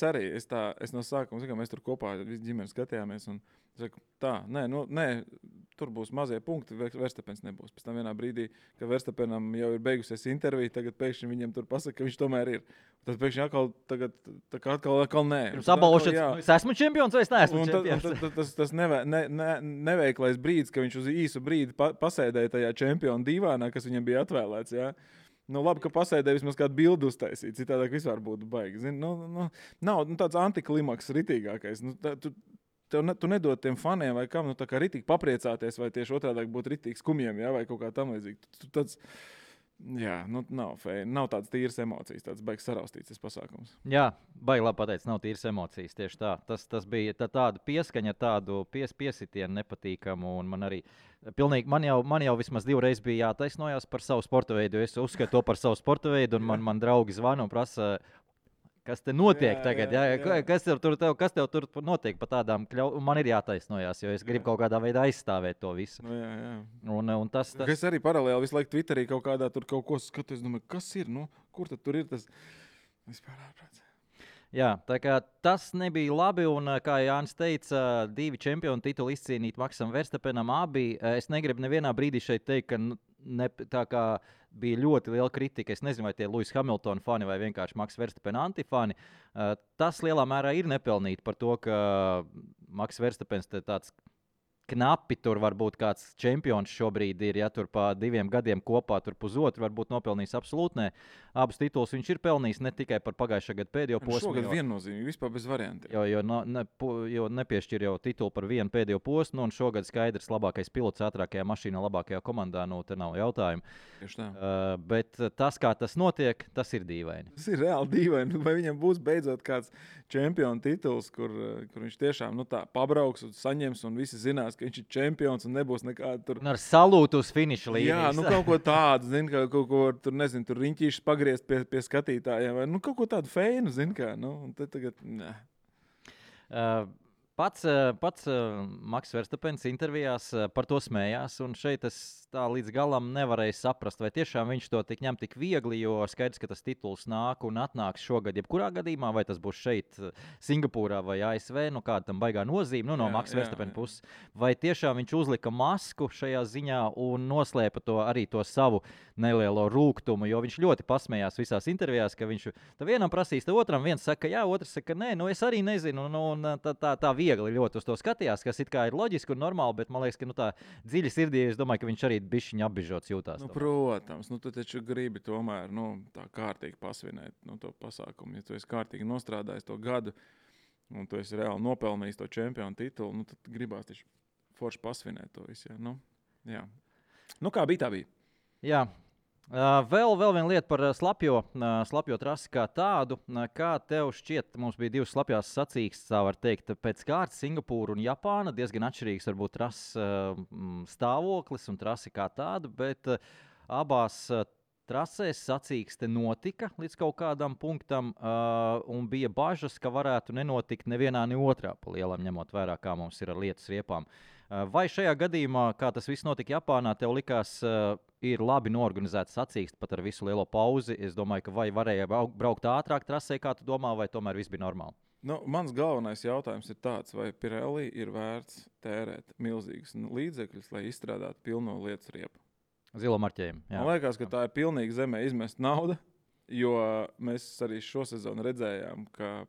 C: no sākuma, mēs tur kopā visi ģimeni skatījāmies un saku, nē, tur būs mazie punkti, Verstapens nebūs. Pēc tam vienā brīdī, kad Verstapenam jau ir beigusies intervija, tagad pēkšņi viņam tur pasaka, ka viņš tomēr ir. Tad pēkšņi atkal nē.
B: Pirms apbalvošanas, es esmu čempions vai es neesmu čempions?
C: Tas neveiklais brīdis, ka viņš uz īsu brīdi pasēdēja tajā čempionu divānā, kas viņam bija atvēlēts, jā. Nu, labi, ka pasēdēja vismaz kādu bildu uztaisīt, citādāk vispār būtu baigi. Zini, nav tāds antiklimaks ritīgākais. Tu nedod tiem faniem vai kam, tā kā ritīgi papriecāties, vai tieši otrādāk būt ritīgi skumjiem, jā, vai kaut kā tam līdzīgi. Nav feini. Nav tādas tīras emocijas, tāds baigs saraustīts pasākums.
B: Jā, baigi labi pateicis, nav tīras emocijas, tieši tā. Tas bija tāda pieskaņa, tādu piesitienu nepatīkamu, un man arī pilnīgi, man jau vismaz 2 reizes bija jātaisnojās par savu sporta veidu, jo es uzskatu to par savu sporta veidu, un man draugi zvana un prasa, kas te notiek tagad, kas tev tur notiek pa tādām kļautām, man ir jātaisnojās, jo es gribu kaut kādā veidā aizstāvēt to visu. Un tas...
C: Es arī paralēli visu laiku Twitterī kaut kādā tur kaut ko skatos, domāju, kas ir, kur tad tur ir tas vispār ārprāts?
B: Jā, tā kā tas nebija labi, un kā Jānis teica, 2 čempionu tituli izcīnīt Maksam Verstapenam abi. Es negribu nevienā brīdī šeit teikt, ka tā kā bija ļoti liela kritika. Es nezinu, vai tie Lewis Hamilton fani vai vienkārši Maks Verstapen antifani. Tas lielā mērā ir nepelnīti par to, ka Maks Verstapens tāds knapi tur varbūt kāds čempions šobrīd ir, ja tur pa 2 gadiem kopā tur pusotru varbūt nopelnījis absolūti ne. Abus titulus viņš ir pelnījis ne tikai par pagājušā gada pēdējo posmu.
C: Šogad viennozīmīgi, vispār bez variantiem.
B: Jo nepiešķir jau titulu par vienu pēdējo posmu, un šogad skaidrs labākais pilots ātrākajā mašīnā, labākajā komandā, te nav jautājumu.
C: Tieši tā.
B: Bet tas, kā tas notiek, tas ir dīvaini.
C: Tas ir reāli dīvaini. Vai viņam būs beidzot kāds čempionu tituls, kur viņš tiešām tā pabrauks un saņems, un visi zinās, ka viņš ir čempions un nebūs nekāda tur...
B: Un ar salūtu uz finiša līnijas.
C: Jā, kaut ko tādu, kaut ko tur, nezinu, tur riņķīšus pagriezt pie skatītājiem, vai kaut ko tādu feinu, un te tagad, nē.
B: Pats Maks Verstapens intervijās par to smējās, un šeit es tā līdz galam nevarēju saprast, vai tiešām viņš to ņem tik viegli, jo skaidrs, ka tas tituls nāk un atnāks šogad jebkurā gadījumā, vai tas būs šeit Singapūrā vai ASV, kāda tam baigā nozīme, no Maks Verstapena puses, vai tiešām viņš uzlika masku šajā ziņā un noslēpa arī to savu nelielo rūgtumu, jo viņš ļoti pasmējās visās intervijās, ka viņš vienam prasīs, otram viens saka jā, otrs saka nē, es arī nezinu, un tā viegli ļoti uz to skatījās, kas it kā ir loģiski un normāli, bet man liekas, ka tā dziļi sirdī, es domāju, ka viņš arī bišķiņ apbižots jūtās.
C: Protams, tu taču gribi tomēr, tā kārtīgi pasvinēt to pasākumu. Ja tu esi kārtīgi nostrādājis to gadu, un tu esi reāli nopelnījis to čempionu titulu, tad gribās taču forši pasvinēt to visu, jā. Kā bija, tā bija.
B: Jā. Vēl viena lieta par slapjo trasi kā tādu. Kā tev šķiet, mums bija 2 slapjās sacīkstes, tā var teikt, pēc kārtas Singapūra un Japāna. Diezgan atšķirīgs varbūt trases stāvoklis un trasi kā tāda, bet abās trasēs sacīkste notika līdz kaut kādam punktam un bija bažas, ka varētu nenotikt nevienā, ne otrā pa lielam, ņemot vērā, kā mums ir ar lietas riepām. Vai šajā gadījumā, kā tas viss notika Japānā, tev likās, ir labi norganizēts sacīksts pat ar visu lielo pauzi? Es domāju, ka vai varēja braukt ātrāk trasē, kā tu domā, vai tomēr viss bija normāli?
C: Mans galvenais jautājums ir tāds, vai Pirelli ir vērts tērēt milzīgus līdzekļus, lai izstrādātu pilno lietas riepu?
B: Zilo marķējumu. Jā.
C: Man liekas, ka tā ir pilnīgi zemē izmest nauda, jo mēs arī šo sezonu redzējām, ka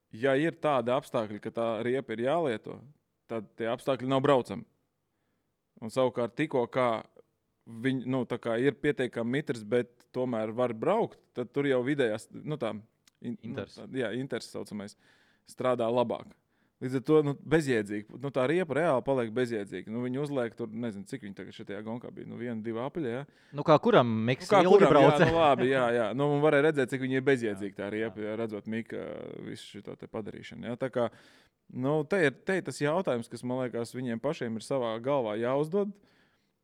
C: ja ir tādi apstākļi, ka tā riepa ir jālieto, tad tie apstākļi nav braucami. Un savukārt tikko kā viņi, tā kā ir pietiekami mitrs, bet tomēr var braukt, tad tur jau vidējās, inters saucamais, strādā labāk. Līdz ar to bezjēdzīgi. Tā riepa reāli paliek bezjēdzīga. Viņi uzliek tur, nezinu, cik viņi tagad šajā gonkā bija. 1, 2 apaļi, jā.
B: Kā kuram Miks ilgi brauca?
C: Labi, jā. Un varēja redzēt, cik viņi ir bezjēdzīgi tā riepa, jā, redzot Mika visu šito te padarīšanu. Jā. Tā kā, te ir tas jautājums, kas, man liekas, viņiem pašiem ir savā galvā jāuzdod.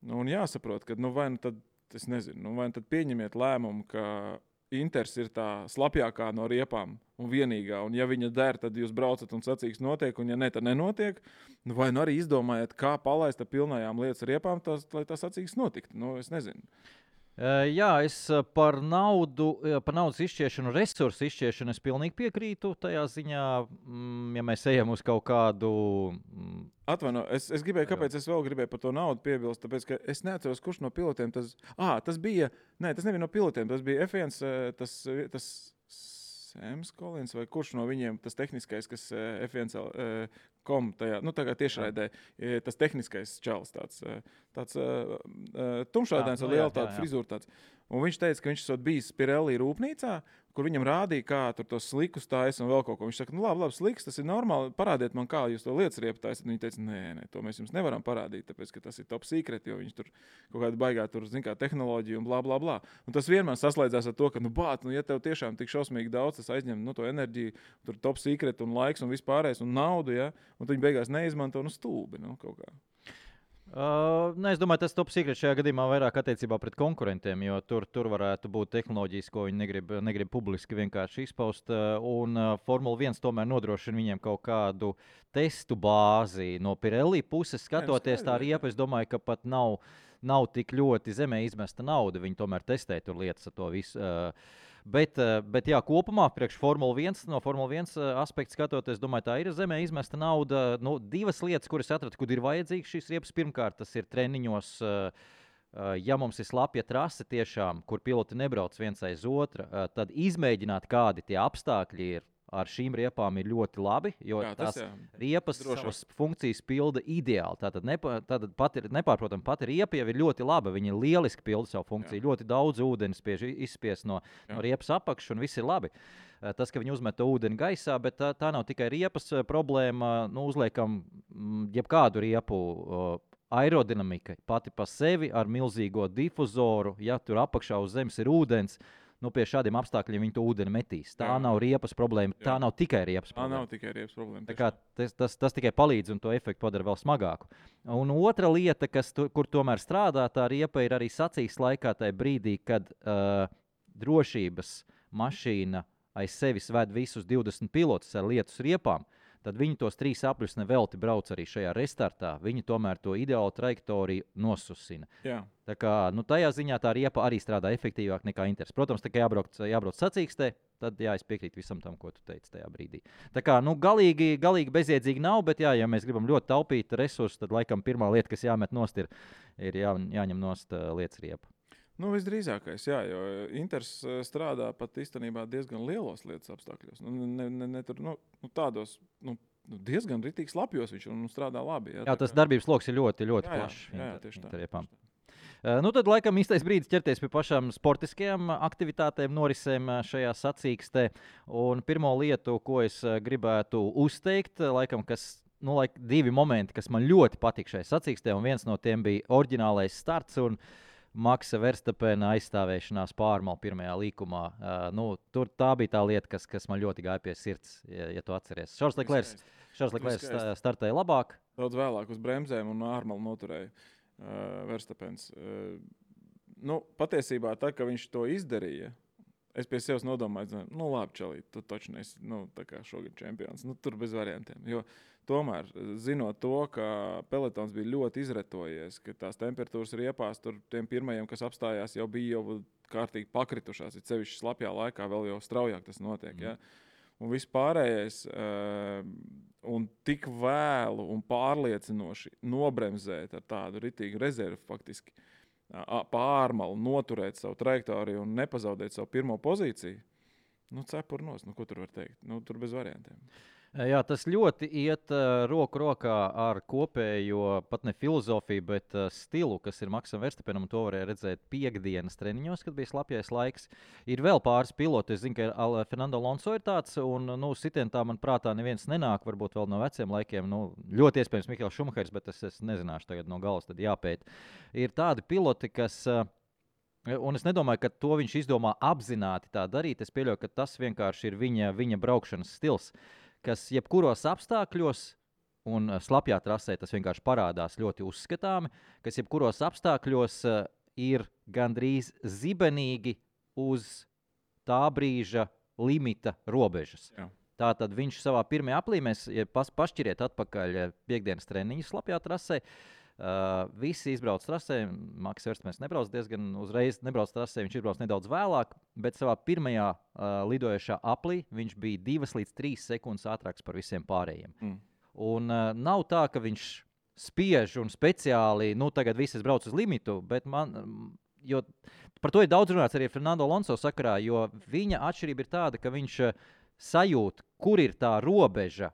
C: Un jāsaprot, ka, vai tad, es nezinu, vai tad pieņemiet lēmumu, ka Inters ir tā slapjākā no riepām un vienīgā. Un ja viņa der, tad jūs braucat un sacīks notiek, un ja ne, tad nenotiek. Nu, vai nu arī izdomājiet, kā palaist ar pilnajām lietas riepām, lai tas sacīks notikt. Nu, es nezinu.
B: Jā, es par naudas izšķiešanu, resursu izšķiešanu es pilnīgi piekrītu tajā ziņā, ja mēs ejam uz kaut kādu...
C: Atvaino, es gribēju, kāpēc es vēl gribēju par to naudu piebilst, tāpēc, ka es neatceros, kurš no pilotiem tas bija, tas nebija no pilotiem, tas bija F1, tas Sams Kolins vai kurš no viņiem, tas tehniskais, kas F1 tajā, tagad tiešraidē, tas tehniskais čalis, tāds tumšādains ar lielu tādu frizūru tāds. Un viņš teica, ka viņš esot bijis Pirelli rūpnīcā, kur viņam rādīja, kā tur tos slikus taisa un vēl kaut ko. Viņš saka, labi, sliks, tas ir normāli, parādiet man, kā jūs to lietas riepu taisat. Viņi teica, nē, to mēs jums nevaram parādīt, tāpēc, ka tas ir top secret, jo viņš tur kaut kāda baigā tur, zin kā, tehnoloģija un blā. Un tas vienmēr saslēdzās ar to, ka, ja tev tiešām tik šausmīgi daudz, tas aizņem, to enerģiju, tur top secret un laiks un vispārējais un naudu, ja, un tu viņi beigās neizmanto, stulbi, kaut kā.
B: Es domāju, tas top secret šajā gadījumā vairāk attiecībā pret konkurentiem, jo tur varētu būt tehnoloģijas, ko viņi negrib publiski vienkārši izpaust. Un Formula 1 tomēr nodrošina viņiem kaut kādu testu bāzi. No Pirelli puses skatoties tā riepa, es domāju, ka pat nav tik ļoti zemē izmesta nauda. Viņi tomēr testē tur lietas ar to visu. Bet jā, kopumā priekš Formula 1, no Formula 1 aspekta skatoties, domāju, tā ir zemē izmesta nauda. Divas lietas, kuras atradu, kur ir vajadzīgas šīs riepas. Pirmkārt, tas ir treniņos, ja mums ir slapja trase tiešām, kur piloti nebrauc viens aiz otra, tad izmēģināt, kādi tie apstākļi ir. Ar šīm riepām ir ļoti labi, jo tās riepas savas funkcijas pilda ideāli. Tātad nepārprotam, pati riepa jau ir ļoti laba. Viņa lieliski pilda savu funkciju. Ļoti daudz ūdens izspiest no riepas apakšas, un viss ir labi. Tas, ka viņi uzmet ūdeni gaisā, bet tā nav tikai riepas problēma. Uzliekam jebkādu riepu aerodinamika pati pa sevi ar milzīgo difuzoru. Ja tur apakšā uz zemes ir ūdens, pie šādiem apstākļiem viņi to ūdeni metīs. Tā nav riepas problēma, tā nav tikai riepas problēma.
C: Tā nav tikai riepas problēma.
B: Tā kā tas tikai palīdz un to efektu padara vēl smagāku. Un otra lieta, kur tomēr strādā tā riepa, ir arī sacīksts laikā tajā brīdī, kad drošības mašīna aiz sevis ved visus 20 pilotus ar lietus riepām, tad viņi tos 3 apļus nevelti brauc arī šajā restartā. Viņi tomēr to ideālu trajektoriju nosusina.
C: Jā.
B: Tā kā tajā ziņā tā riepa arī strādā efektīvāk nekā Inters. Protams, tā kā jābrauc sacīkstē, tad es piekrītu visam tam, ko tu teici tajā brīdī. Tā kā galīgi bezjēdzīgi nav, bet ja mēs gribam ļoti taupīt resursus, tad laikam pirmā lieta, kas jāmet nost, ir jāņem nost lietas riepa.
C: Visdrīzākais, jā, jo Inters strādā pat īstenībā diezgan lielos lietas apstākļos. Tādos diezgan ritīgi slapjos viņš strādā labi.
B: Jā, tas darbības loks ir ļoti, ļoti plašs.
C: Jā, tieši tā.
B: Riepām. Tad laikam īstais brīdis ķerties pie pašām sportiskajām aktivitātēm, norisēm šajā sacīkstē. Un pirmo lietu, ko es gribētu uzteikt, laikam, divi momenti, kas man ļoti patīk šajā sacīkstē, un viens no tiem bija oriģinālais starts un Maksa Verstapena aizstāvēšanās pārmalu pirmajā līkumā. Tā bija tā lieta, kas man ļoti gāja pie sirds, ja tu atceries. Šarls Leklērs startēja labāk.
C: Daudz vēlāk uz bremzēm un ārmalu noturēja Verstapens. Patiesībā tā, ka viņš to izdarīja, es pie sevis nodomāju, labi, Čalīt, tu taču nesi tā kā šogad čempions. Tur bez variantiem. Jo tomēr, zinot to, ka pelotons bija ļoti izretojies, ka tās temperatūras riepās tur tiem pirmajiem, kas apstājās, jau bija kārtīgi pakritušās, it sevišķi slapjā laikā vēl jau straujāk tas notiek. Ja? Un viss pārējais un tik vēlu un pārliecinoši nobremzēt ar tādu ritīgu rezervu faktiski pārmalu, noturēt savu trajektoriju un nepazaudēt savu pirmo pozīciju, cepurnos, ko tur var teikt? Tur bez variantiem.
B: Jā, tas ļoti iet roku rokā ar kopējo, pat ne filozofiju, bet stilu, kas ir Maksam Verstapenam, un to varēja redzēt piekdienas treniņos, kad bija slapjais laiks. Ir vēl pāris piloti, es zinu, ka Fernando Alonso ir tāds, un sitientā man prātā neviens nenāk, varbūt vēl no veciem laikiem, ļoti iespējams Mihails Šumahers, bet es nezināšu tagad no galas, tad jāpēt. Ir tādi piloti, kas... Un es nedomāju, ka to viņš izdomā apzināti tā darīt. Es pieļauju, ka tas vienkārši ir viņa braukšanas stils, kas jebkuros apstākļos, un slapjā trasē tas vienkārši parādās ļoti uzskatāmi, kas jebkuros apstākļos ir gandrīz zibenīgi uz tā brīža limita robežas.
C: Jā.
B: Tātad viņš savā pirmajā aplī, mēs pašķiriet atpakaļ piekdienas treniņu slapjā trasē. Visi izbrauc trasē, Maks Verstapens nebrauc diezgan uzreiz, nebrauc trasē, viņš izbrauc nedaudz vēlāk, bet savā pirmajā lidojošā aplī viņš bija 2 līdz 3 sekundes ātrāks par visiem pārējiem. Un nav tā, ka viņš spiež un speciāli, tagad visi brauc uz limitu, bet jo par to ir daudz runāts arī Fernando Alonso sakarā, jo viņa atšķirība ir tāda, ka viņš sajūt, kur ir tā robeža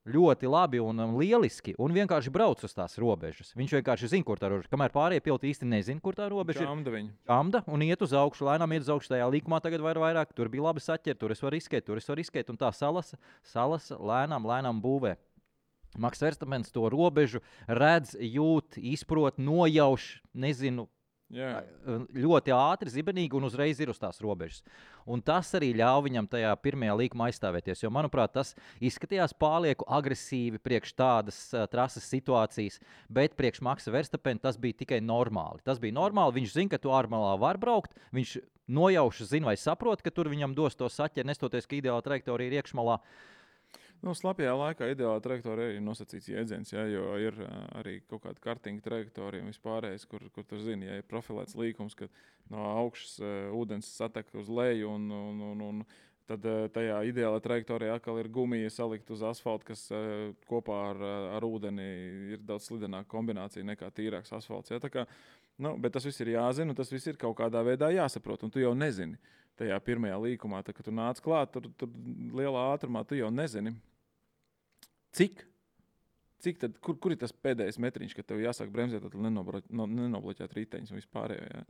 B: ļoti labi un lieliski, un vienkārši brauc uz tās robežas. Viņš vienkārši zina, kur tā robeža. Kamēr pārējie piloti īsti nezina, kur tā robeža ir. Čamda un iet uz augšu, lēnām iet uz augšu. Tajā līkumā tagad vairāk, tur bija labi saķert, tur es varu riskēt, un tā salasa lēnām būvē. Maks Verstapens to robežu redz, jūt, izprot, nojauš, nezinu, ļoti ātri, zibenīgi un uzreiz ir uz tās robežas. Un tas arī ļauj viņam tajā pirmajā līkumā aizstāvēties, jo, manuprāt, tas izskatījās pārlieku agresīvi priekš tādas trases situācijas, bet priekš Maksa Verstapena tas bija tikai normāli. Tas bija normāli, viņš zina, ka tu ārmalā var braukt, viņš nojauši zina vai saprot, ka tur viņam dos to saķeri, nestoties, ka ideāla trajektorija ir iekšmalā.
C: Slapjā laikā ideālā trajektorija ir nosacīts jēdziens, jo ir arī kaut kāda kartinga trajektorija un vispārējais, kur tur zini, ja ir profilēts līkums, ka no augšas ūdens satek uz leju un tad tajā ideālā trajektorijā atkal ir gumija salikt uz asfalta, kas kopā ar ūdeni ir daudz slidenāka kombinācija nekā tīrāks asfalts. Ja? Tā kā, bet tas viss ir jāzina un tas viss ir kaut kādā veidā jāsaprot, un tu jau nezini. Tajā pirmajā līkumā, kad tu nāc klāt, tur lielā ātrumā tu jau nezini. Cik tad, kur ir tas pēdējais metriņš, kad tev jāsāk bremzēt, tad nenobloķēt riteņus un vispārējo. Ja?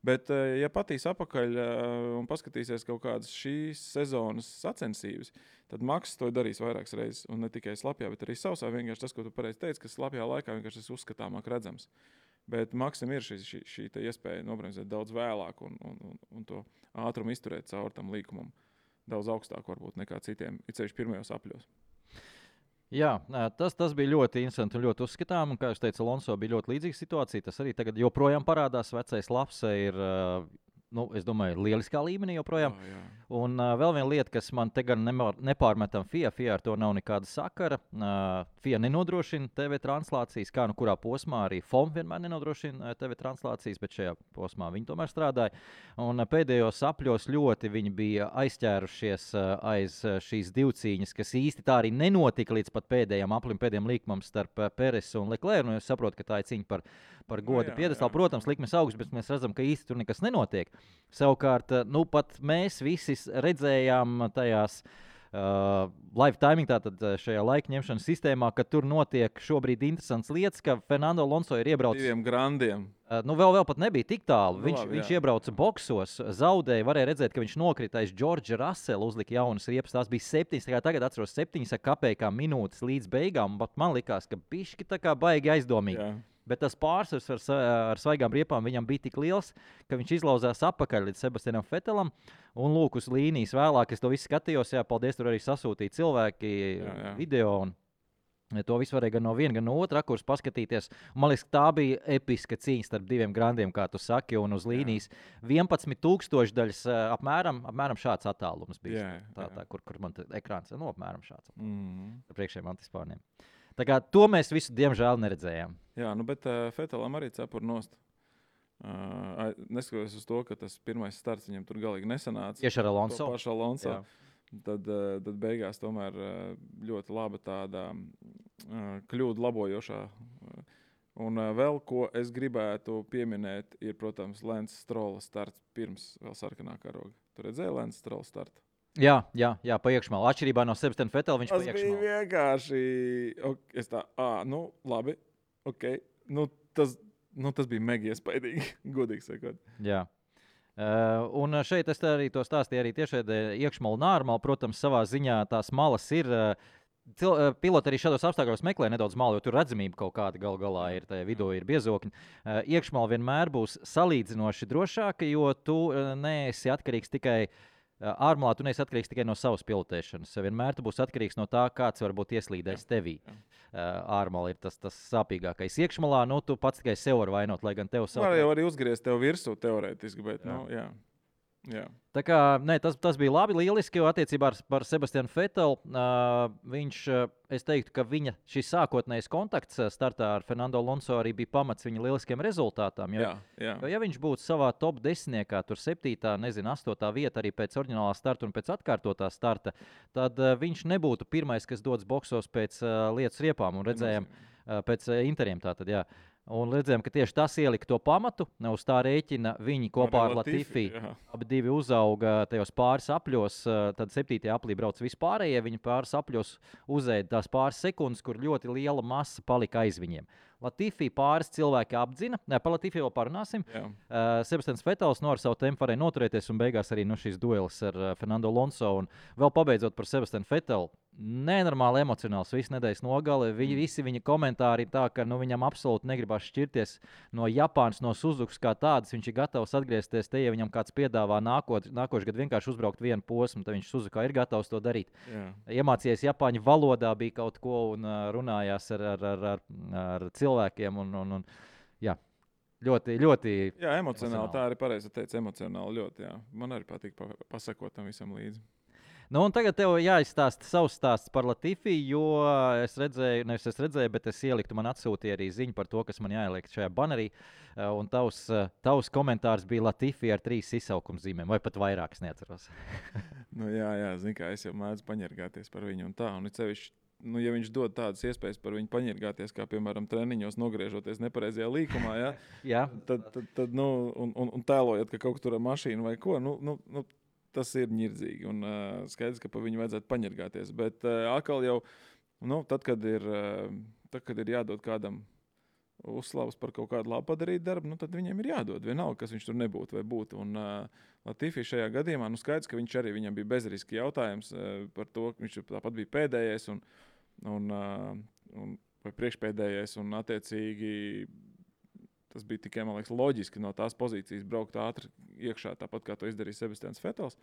C: Bet, ja patīs apakaļ un paskatīsies kaut kādas šīs sezonas sacensības, tad Maks to darīs vairākas reizes. Un ne tikai slapjā, bet arī sausā. Vienkārši tas, ko tu pareizi teici, ka slapjā laikā vienkārši tas uzskatāmāk redzams. Bet Maksam ir šī iespēja nobremzēt daudz vēlāk un to ātrumu izturēt caur tam līkumam daudz augstāk varbūt nekā citiem, it sevišķi pirmajos apļos.
B: Jā, tas bija ļoti interesanti un ļoti uzskatām. Un, kā jūs teicat, Alonso bija ļoti līdzīga situācija. Tas arī tagad joprojām parādās. Vecais Lapse ir, es domāju, lieliskā līmenī joprojām.
C: Jā.
B: Un vēl viena lieta, kas man te gan nepārmetam FIA ar to nav nekāda sakara. FIA nenodrošina TV translācijas, kā kurā posmā arī FOM vienmēr nenodrošina TV translācijas, bet šajā posmā viņi tomēr strādāja. Un pēdējos apļos ļoti viņi bija aizķērušies aiz šīs divcīņas, kas īsti tā arī nenotika līdz pat pēdējiem aplim, pēdējiem līkumam starp Peresu un Leclerc. Un es saprotu, ka tā ir cīņa par godu piedestālu. Protams, likmes augsts, bet mēs redzam, ka īsti tur nekas nenotiek. Savukārt, pat mēs visi redzējām tajās live timing, tātad šajā laika ņemšanas sistēmā, ka tur notiek šobrīd interesants lietas, ka Fernando Alonso ir iebraucis
C: 2 grandiem.
B: Vēl pat nebija tik tālu. Viņš iebrauca boksos, zaudēja, varēja redzēt, ka viņš nokrita aiz Džordža Rasela, uzlika jaunas riepas. Tās bija 7, tagad atceros 7 kapekām minūtes līdz beigām, bet man likās, ka bišķi tā kā baigi aizdomīgi.
C: Jā.
B: Bet tas pārsvars ar svaigām riepām viņam bija tik liels, ka viņš izlauzās apakaļ līdz Sebastianam Vettelam. Un lūk, uz līnijas vēlāk es to visu skatījos. Jā, paldies, tur arī sasūtīja cilvēki video. Un to visu varēja gan no viena, gan no otra rakursa paskatīties. Un man liekas, tā bija episka cīņa starp 2 grandiem, kā tu saki. Un uz līnijas 11,000 daļas apmēram šāds attālums bija. Tā, kur man ekrāns ir apmēram šāds. Ar priekšējiem antispārniem. Tā kā to mēs visu, diemžēl, neredzējām.
C: Jā, bet Vettelam arī cepur nost. Neskatoties uz to, ka tas pirmais starts viņam tur galīgi nesanāca.
B: Tieši ar Alonso.
C: Pašu Alonso. Tad beigās tomēr ļoti laba tāda kļūdu labojošā. Un vēl, ko es gribētu pieminēt, ir, protams, Lance Strolla starts pirms vēl sarkanā karoga. Tu redzēji Lance Strolla startu?
B: Jā, pa iekšmalu. Atšķirībā no Sebastiana Vettela viņš pa iekšmalu.
C: Tas bija vienkārši, labi, ok. Tas bija mega iespaidīgi, godīgi sakot.
B: Jā. Un šeit es arī to stāstīju arī tiešēdē iekšmalu un ārmalu. Protams, savā ziņā tās malas ir. Piloti arī šādos apstākļos meklē nedaudz malu, jo tur redzamība kaut kāda galā ir, tajā vidū ir biezokņi. Iekšmala vienmēr būs salīdzinoši drošāka, jo tu neesi atkarīgs tikai ārmalā, tu neesi atkarīgs tikai no savas pilotēšanas. Vienmēr tu būsi atkarīgs no tā, kāds varbūt ieslīdēs tevī. Ārmalā ir tas sāpīgākais. Iekšmalā, tu pats tikai sev var vainot, lai gan tev savu.
C: Var jau arī uzgriezt tev virsū teorētiski, bet, jā. Jā.
B: Tā kā, tas bija labi, lieliski, jo attiecībā par Sebastianu Vetelu viņš, es teiktu, ka viņa šis sākotnējais kontakts startā ar Fernando Alonso arī bija pamats viņa lieliskiem rezultātām.
C: Jā.
B: Jo, ja viņš būtu savā top 10, tur 7, 8 vieta arī pēc oriģinālā starta un pēc atkārtotā starta, tad viņš nebūtu pirmais, kas dodas boksos pēc lietas riepām un redzējām pēc interiem tātad, jā. Un redzējām, ka tieši tas ielika to pamatu. Uz tā rēķina viņi kopā ar Latifi abi divi uzauga tajos pāris apļos. Tad 7. aplī brauc vispārējie. Viņi pāris apļos uzēda tās pāris sekundes, kur ļoti liela masa palika aiz viņiem. Latifi pāris cilvēki apdzina. Par Latifi vēl parunāsim. Sebastians Vetels ar savu tempu varēja noturēties un beigās arī šīs duelis ar Fernando Alonso. Un vēl pabeidzot par Sebastianu Vetelu. Nenormāli emocionāls, visu nedēļas nogale. Visi viņa komentāri ir tā, ka viņam absolūti negribas šķirties no Japānas, no Suzukas kā tādas. Viņš ir gatavs atgriezties te, ja viņam kāds piedāvā nākošais gadu vienkārši uzbraukt vienu posmu, tad viņš Suzukā ir gatavs to darīt.
C: Jā.
B: Iemācījies Japāņu valodā, bija kaut ko un runājās ar cilvēkiem. Jā. Ļoti, ļoti.
C: Jā, emocionāli. Tā arī pareizi teica, emocionāli ļoti. Jā. Man arī patīk pasakot tam visam līdzi.
B: Un tagad tev jāizstāsta savs stāsts par Latifi, jo es redzēju, bet es ieliktu, man atsūtīja arī ziņu par to, kas man jāieliek šajā banerī. Un tavs komentārs bija Latifi ar 3 izsaukumzīmēm, vai pat vairāk, es neatceros.
C: Jā, zini kā, es jau mēdzu paņergāties par viņu un tā. Un cevišķi, ja viņš dod tādas iespējas par viņu paņergāties, kā piemēram treniņos nogriežoties nepareizajā līkumā,
B: jā.
C: tad un tēlojot, ka kaut kur tur ar mašīnu vai ko, tas ir ņirdzīgi un skaidrs, ka pa viņu vajadzētu paņergāties. Bet atkal jau, tad, kad ir jādod kādam uzslavas par kaut kādu labu padarīt darbu, tad viņiem ir jādod. Vienalga, kas viņš tur nebūtu vai būtu. Un Latifi šajā gadījumā, skaidrs, ka viņam bija bezriski jautājums par to, ka viņš tāpat bija pēdējais vai priekšpēdējais un attiecīgi tas bija tikai, man liekas, loģiski no tās pozīcijas braukt ātri iekšā, tāpat kā to izdarīja Sebastians Vetels.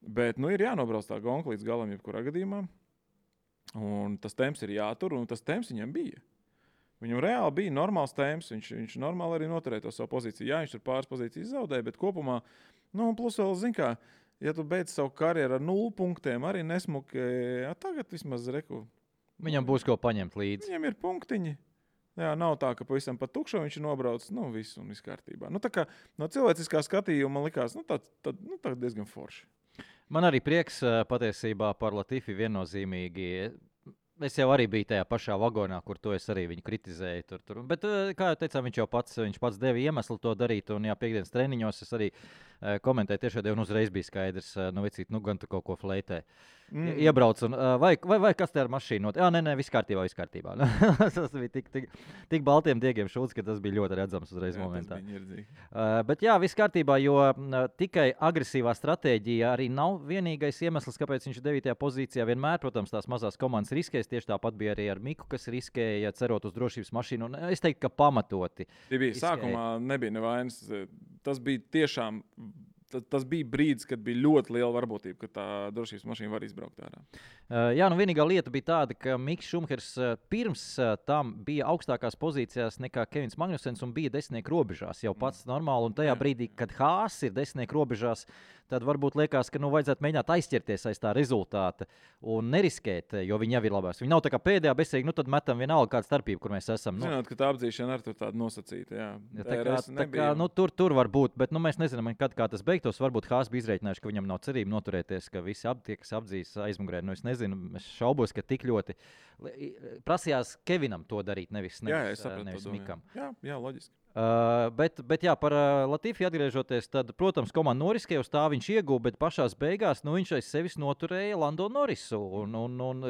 C: Bet, ir jānobrauc tā gonka līdz galam jebkurā gadījumā. Un tas temps ir jātur, un tas temps viņam bija. Viņam reāli bija normāls temps, viņš normāli arī noturēja to savu pozīciju. Jā, viņš tur pāris pozīcijas zaudēja, bet kopumā, plus vēl, zin kā, ja tu beidz savu karjeru ar 0 punktiem, arī nesmuki, tagad vismaz reku.
B: Viņam būs ko paņemt līdzi.
C: Viņam ir punktiņi. Jā, nav tā, ka pavisam pat tukšo viņš ir nobraucis, viss kārtībā. Tā kā no cilvēciskā skatījuma man likās, tā diezgan forši.
B: Man arī prieks patiesībā par Latifi viennozīmīgi. Es jau arī biju tajā pašā vagonā, kur to es arī viņu kritizēju. Tur. Bet, kā jau teicām, viņš pats deva iemeslu to darīt. Un piekdienas treniņos es arī komentēju tiešām, un uzreiz bija skaidrs, gan tu kaut ko fleitē. Iebrauc, un, vai kas te ar mašīnu? Jā, nē, viss kārtībā. Tas bija tik baltiem diegiem šūts, ka tas bija ļoti redzams uzreiz momentā. Bet jā, viss kārtībā, jo tikai agresīvā stratēģija arī nav vienīgais iemesls, kāpēc viņš ir 9. pozīcijā. Vienmēr, protams, tās mazās komandas riskēs. Tieši tāpat bija arī ar Miku, kas riskēja cerot uz drošības mašīnu. Un es teiktu, ka pamatoti.
C: Sākumā nebija nevainas. Tas bija tiešām. Tas bija brīdis, kad bija ļoti liela varbūtība, ka tā drošības mašīna var izbraukt ārā.
B: Jā, vienīgā lieta bija tāda, ka Miks Šumahers pirms tam bija augstākās pozīcijās nekā Kevins Magnusens un bija 10. robežās. Jau pats normāli, un tajā brīdī, kad Haas ir 10. robežās, tad varbūt liekas, ka vajadzētu mēģināt aizķerties aiz tā rezultāta un neriskēt, jo viņi jau ir labās. Viņi nav tā kā pēdējā bezsīgi, tad metam vienalga kāda starpība, kur mēs esam.
C: Zināt, ka tā apdzīšana arī tur tāda nosacīta, jā.
B: Tur var būt, bet mēs nezinām, kā tas beigtos. Varbūt Haas bija izreikinājuši, ka viņam nav cerība noturēties, ka visi tie, kas apdzīs aizmugurē. Es nezinu, es šaubos, ka tik ļoti prasījās Kevinam to darīt, nevis Mikam.
C: Jā, loģiski.
B: Bet jā, par Latifi atgriežoties, tad, protams, komanda noriskēja, uz tā viņš ieguva, bet pašās beigās viņš aiz sevis noturēja Lando Norrisu.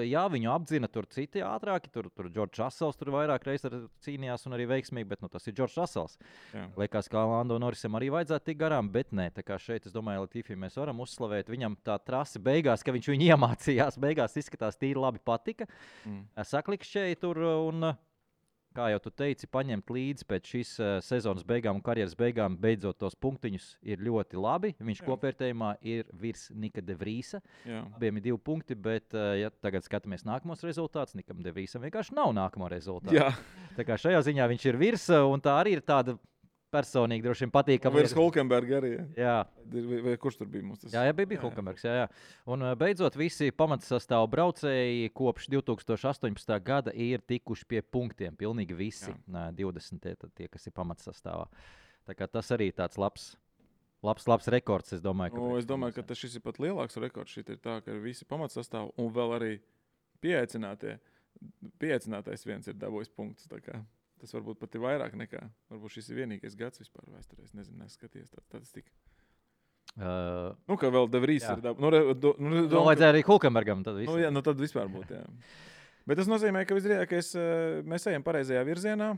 B: Jā, viņu apdzina tur citi ātrāki, tur George Russells tur vairāk reizes cīnījās un arī veiksmīgi, bet tas ir George Russells. Liekas, ka Lando Norrisam arī vajadzētu tik garām, bet nē, tā kā šeit, es domāju, Latifi mēs varam uzslavēt. Viņam tā trase beigās, ka viņš viņu iemācījās, beigās izskatās tīri labi patika. Saklikšķēja tur un... Kā jau tu teici, paņemt līdzi pēc šīs sezonas beigām un karjeras beigām, beidzot tos punktiņus, ir ļoti labi. Viņš kopvērtējumā ir virs Nika de Vriesa. Abiem ir 2 punkti, bet, ja tagad skatāmies nākamos rezultātus, Nikam de Vriesam vienkārši nav nākamo rezultātu. Tā kā šajā ziņā viņš ir virs, un tā arī ir tāda personīgi droši vien patīkami.
C: Virs Hulkenberga arī.
B: Jā.
C: Vai kurš tur bija mums? Tas?
B: Jā, bija Hulkenbergs. Jā. Un beidzot visi pamatsastāvu braucēji kopš 2018. gada ir tikuši pie punktiem. Pilnīgi visi 20 tie, kas ir pamatsastāvā. Tā kā tas arī tāds labs rekords, es domāju.
C: Es domāju, ka šis ir pat lielāks rekords. Šit ir tā, ka visi pamatsastāvi un vēl arī pieaicinātais viens ir dabūjis punktus. Tas varbūt pat ir vairāk nekā. Varbūt šis ir vienīgais gads vispār vēsturē. Es nezinu, neskaties tādu statistiku. Kā vēl De Vries ir dabūjis.
B: Vajadzēja arī Hulkenbergam. Tad
C: vispār būtu, jā. Bet tas nozīmē, ka mēs ejam pareizajā virzienā.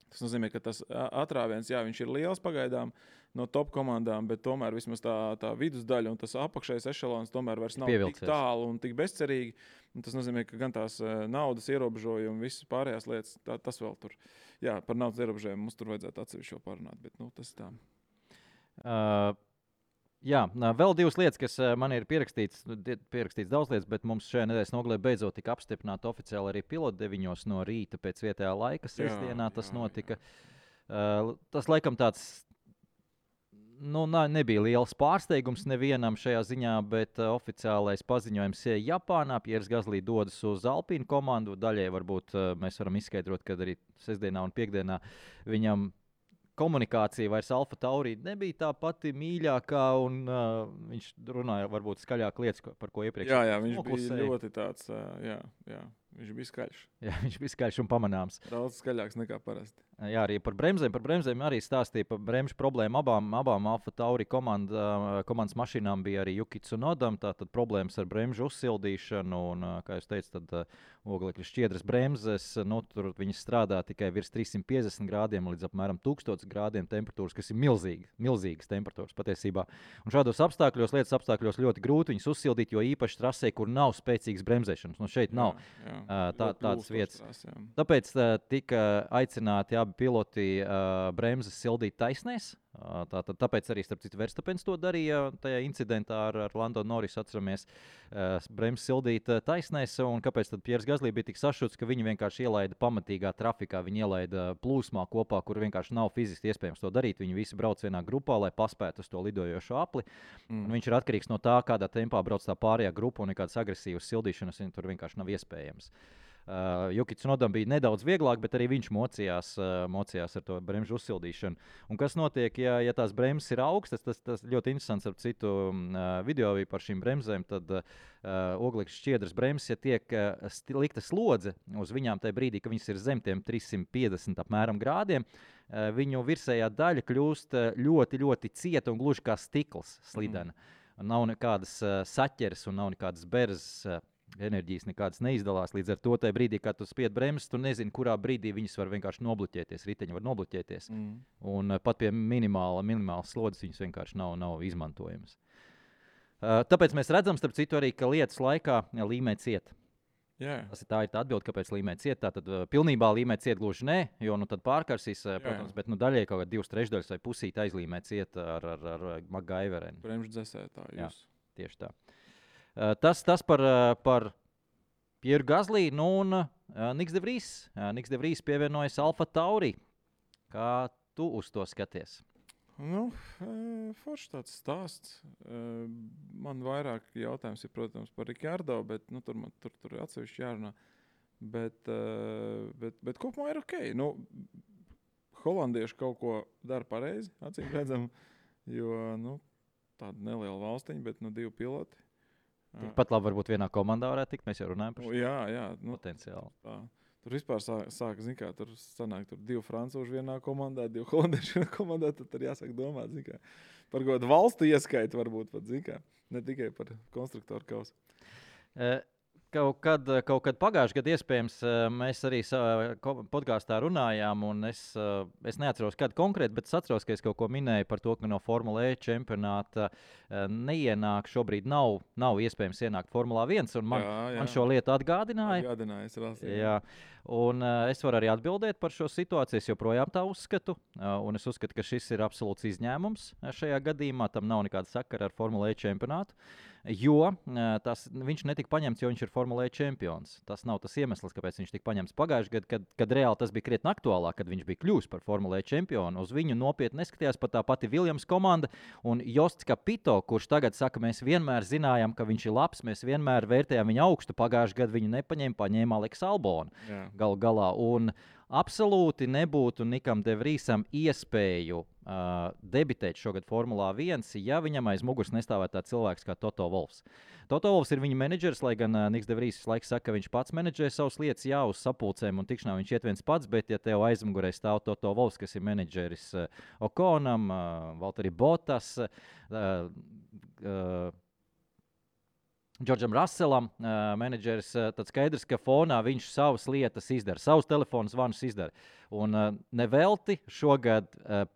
C: Tas nozīmē, ka tas atrāviens, viņš ir liels pagaidām no top komandām, bet tomēr vismaz tā vidusdaļa un tas apakšējais ešalons tomēr vairs nav tik tālu un tik bezcerīgi. Un tas nozīmē, ka gan tās naudas ierobežojumi, visas pārējās lietas, tas vēl tur. Jā, par naudas ierobežojumu mums tur vajadzētu atsevišķi parunāt, bet tas tā.
B: Jā, vēl divas lietas, kas man ir pierakstīts daudz lietas, bet mums šajā nedēļas nogalē beidzot tika apstiprināta oficiāli arī pilota 9 no rīta pēc vietējā laika. Sestdienā tas notika. Tas laikam tāds nebija liels pārsteigums nevienam šajā ziņā, bet oficiālais paziņojums ir Japānā. Pieris Gasly dodas uz Alpīnu komandu. Daļai varbūt mēs varam izskaidrot, ka arī sestdienā un piekdienā viņam komunikācija vairs Alfa Tauri nebija tā pati mīļākā, un viņš runāja varbūt skaļāk lietas, par ko iepriekš.
C: Jā, viņš bija ļoti tāds, viņš bija skaļš.
B: Jā, viņš bija skaļš un pamanāms.
C: Daudz skaļāks nekā parasti.
B: Jā, arī par bremzēm arī stāstīja par bremžu problēmu. Abām Alfa Tauri komandas mašīnām bija arī Yuki Tsunodam, tātad problēmas ar bremžu uzsildīšanu, un, kā jūs teicat, tad oglekļa šķiedras bremzes, tur viņas strādā tikai virs 350 grādiem līdz apmēram 1000 grādiem temperatūras, kas ir milzīgas temperatūras patiesībā. Un šādos lietas apstākļos ļoti grūti viņas uzsildīt, jo īpaši trasē, kur nav spēcīgas bremzēšanas. Šeit nav tādas vietas. Tāpēc tika aicināti abi piloti bremzes sildīt taisnēs. Tāpēc arī, starp citu, Verstapens to darīja tajā incidentā ar Lando Norrisu, atceramies, bremzes sildīt taisnēs. Un kāpēc tad Pieris Gasly bija tik sašuts, ka viņi vienkārši ielaida pamatīgā trafikā, viņi ielaida plūsmā kopā, kur vienkārši nav fiziski iespējams to darīt. Viņi visi brauc vienā grupā, lai paspētu uz to lidojošo apli. Viņš ir atkarīgs no tā, kādā tempā brauc tā pārējā grupa, un nekādas agresīvas sildīšanas tur vienkārši nav iespējams. Yuki Tsunodam bija nedaudz vieglāk, bet arī viņš mocījās ar to bremžu uzsildīšanu. Un kas notiek, ja tās bremzes ir augstas, tas ļoti interesants ar citu video par šīm bremzēm, tad oglekļa šķiedras bremzes, ja tiek likta slodze uz viņām tajā brīdī, ka viņas ir zem tiem 350 apmēram grādiem, viņu virsējā daļa kļūst ļoti, ļoti cieta un gluži kā stikls slidena. Nav nekādas saķeres un nav nekādas berzes. Enerģijas nekādas neizdalās. Līdz ar to tajā brīdī, kad tu spied bremzes, tu nezini, kurā brīdī viņas var vienkārši nobloķēties. Riteņi var nobloķēties. Un pat pie minimālas slodzes viņas vienkārši nav izmantojamas. Tāpēc mēs redzam, starp citu, arī, ka lietas laikā līmē ciet. Tā ir tā atbilde, kāpēc līmē ciet. Tātad pilnībā līmē ciet gluži nē, jo tad pārkarsīs, protams, bet daļai kaut kā 2/3 vai pusīt aizlīmē ciet ar MacGyverenu.
C: Bremžu dzēsētāju.
B: Jā, tieši tā. Tas par Pieru Gasly, un Niks de Vries. Niks de Vries pievienojas Alfa Tauri. Kā tu uz to skaties?
C: Forši tāds stāsts. Man vairāk jautājums ir, protams, par Ricardo, bet tur ir atsevišķi jārunā. Bet kopumā ir ok. Holandieši kaut ko dara pareizi, acīm redzam, jo tāda neliela valstiņa, bet 2 piloti.
B: Tikpat labi varbūt vienā komandā varētu tikt, mēs jau runājam par šo
C: potenciāli. Tur vispār sāk, tur sanāk 2 francūži vienā komandā, 2 holandieši vienā komandā, tad jāsāk domāt, par kaut kādu valstu ieskaitu varbūt pat, ne tikai par konstruktoru kausu.
B: Kaut kad pagājušajā gadā iespējams mēs arī podkāstā runājām, un es neatceros, kad konkrēti, bet es atceros, ka es kaut ko minēju par to, ka no Formula E čempionāta neienāk, šobrīd nav iespējams ienākt Formula 1, un man šo lietu atgādināja. Jā. Un es varu arī atbildēt par šo situāciju. Es joprojām tā uzskatu, un es uzskatu, ka šis ir absolūts izņēmums šajā gadījumā. Tam nav nekāda sakara ar Formula E čempionātu. Jo viņš netika paņemts, jo viņš ir Formula E čempions. Tas nav tas iemesls, kāpēc viņš tika paņemts pagājušajā gadā, kad reāli tas bija krietni aktuālāk, kad viņš bija kļuvis par Formula E čempionu. Uz viņu nopietni neskatījās pat tā pati Williams komanda un Josts Capito, kurš tagad saka, mēs vienmēr zinājām, ka viņš ir labs, mēs vienmēr vērtējām viņu augstu. Pagājušajā gadā viņu paņēma Aleks Albonu galu galā. Un absolūti nebūtu Nikam De Vriesam iespēju debitēt šogad Formulā 1, ja viņam aiz muguras nestāvētu tāds cilvēks kā Toto Wolffs. Toto Wolffs ir viņa menedžers, lai gan Niks De Vries visu laiku saka, ka viņš pats menedžē savas lietas, jā, uz sapulcēm un tikšanām viņš iet viens pats, bet ja tev aizmugurē stāv Toto Wolffs, kas ir menedžeris Okonam, Valtteri Bottas, Džordžam Russellam, menedžeris, tad skaidrs, ka fonā viņš savas lietas izdara, savus telefonu zvanus izdara. Un nevelti šogad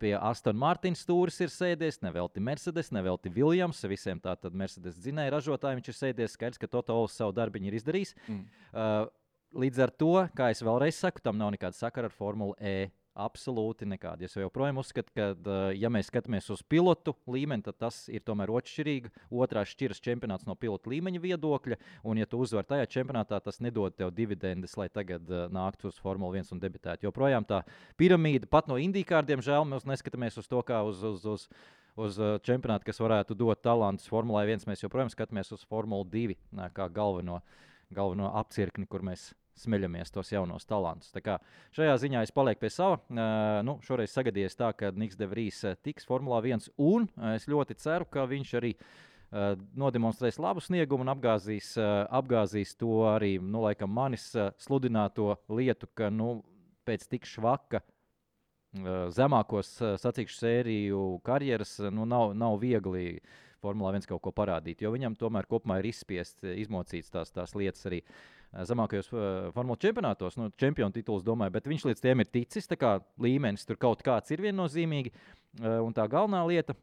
B: pie Aston Martin stūris ir sēdies, nevelti Mercedes, nevelti Williams, visiem tātad Mercedes dzinēja ražotāji viņš ir sēdies, skaidrs, ka Toto Wolffs savu darbiņu ir izdarījis. Līdz ar to, kā es vēlreiz saku, tam nav nekāda sakara ar Formulu E. Absolūti nekādi. Es joprojām uzskatu, ka, ja mēs skatāmies uz pilotu līmeni, tad tas ir tomēr otršķirīgi. Otrās šķiras čempionāts no pilotu līmeņa viedokļa, un ja tu uzvar tajā čempionātā, tas nedod tev dividendes, lai tagad nāktu uz Formula 1 un debitētu. Joprojām tā piramīda, pat no IndyCar, diemžēl, mēs neskatāmies uz to kā uz čempionātu, kas varētu dot talantus Formulai 1. Mēs joprojām skatāmies uz Formulu 2 kā galveno apcirkni, kur mēs smeļamies tos jaunos talantus. Tā kā šajā ziņā es palieku pie sava. Šoreiz sagadījies tā, ka Niks De Vries tiks Formulā 1, un es ļoti ceru, ka viņš arī nodemonstrēs labu sniegumu un apgāzīs to arī, laikam, manis sludināto lietu, ka, pēc tik švaka zemākos sacīkšu sēriju karjeras, nav viegli Formulā 1 kaut ko parādīt, jo viņam tomēr kopumā ir izmocīts tās lietas arī zemākajos Formula čempionātos, čempionu tituls, domāju, bet viņš līdz tiem ir ticis, tā kā līmenis tur kaut kāds ir viennozīmīgi, un tā galvenā lieta,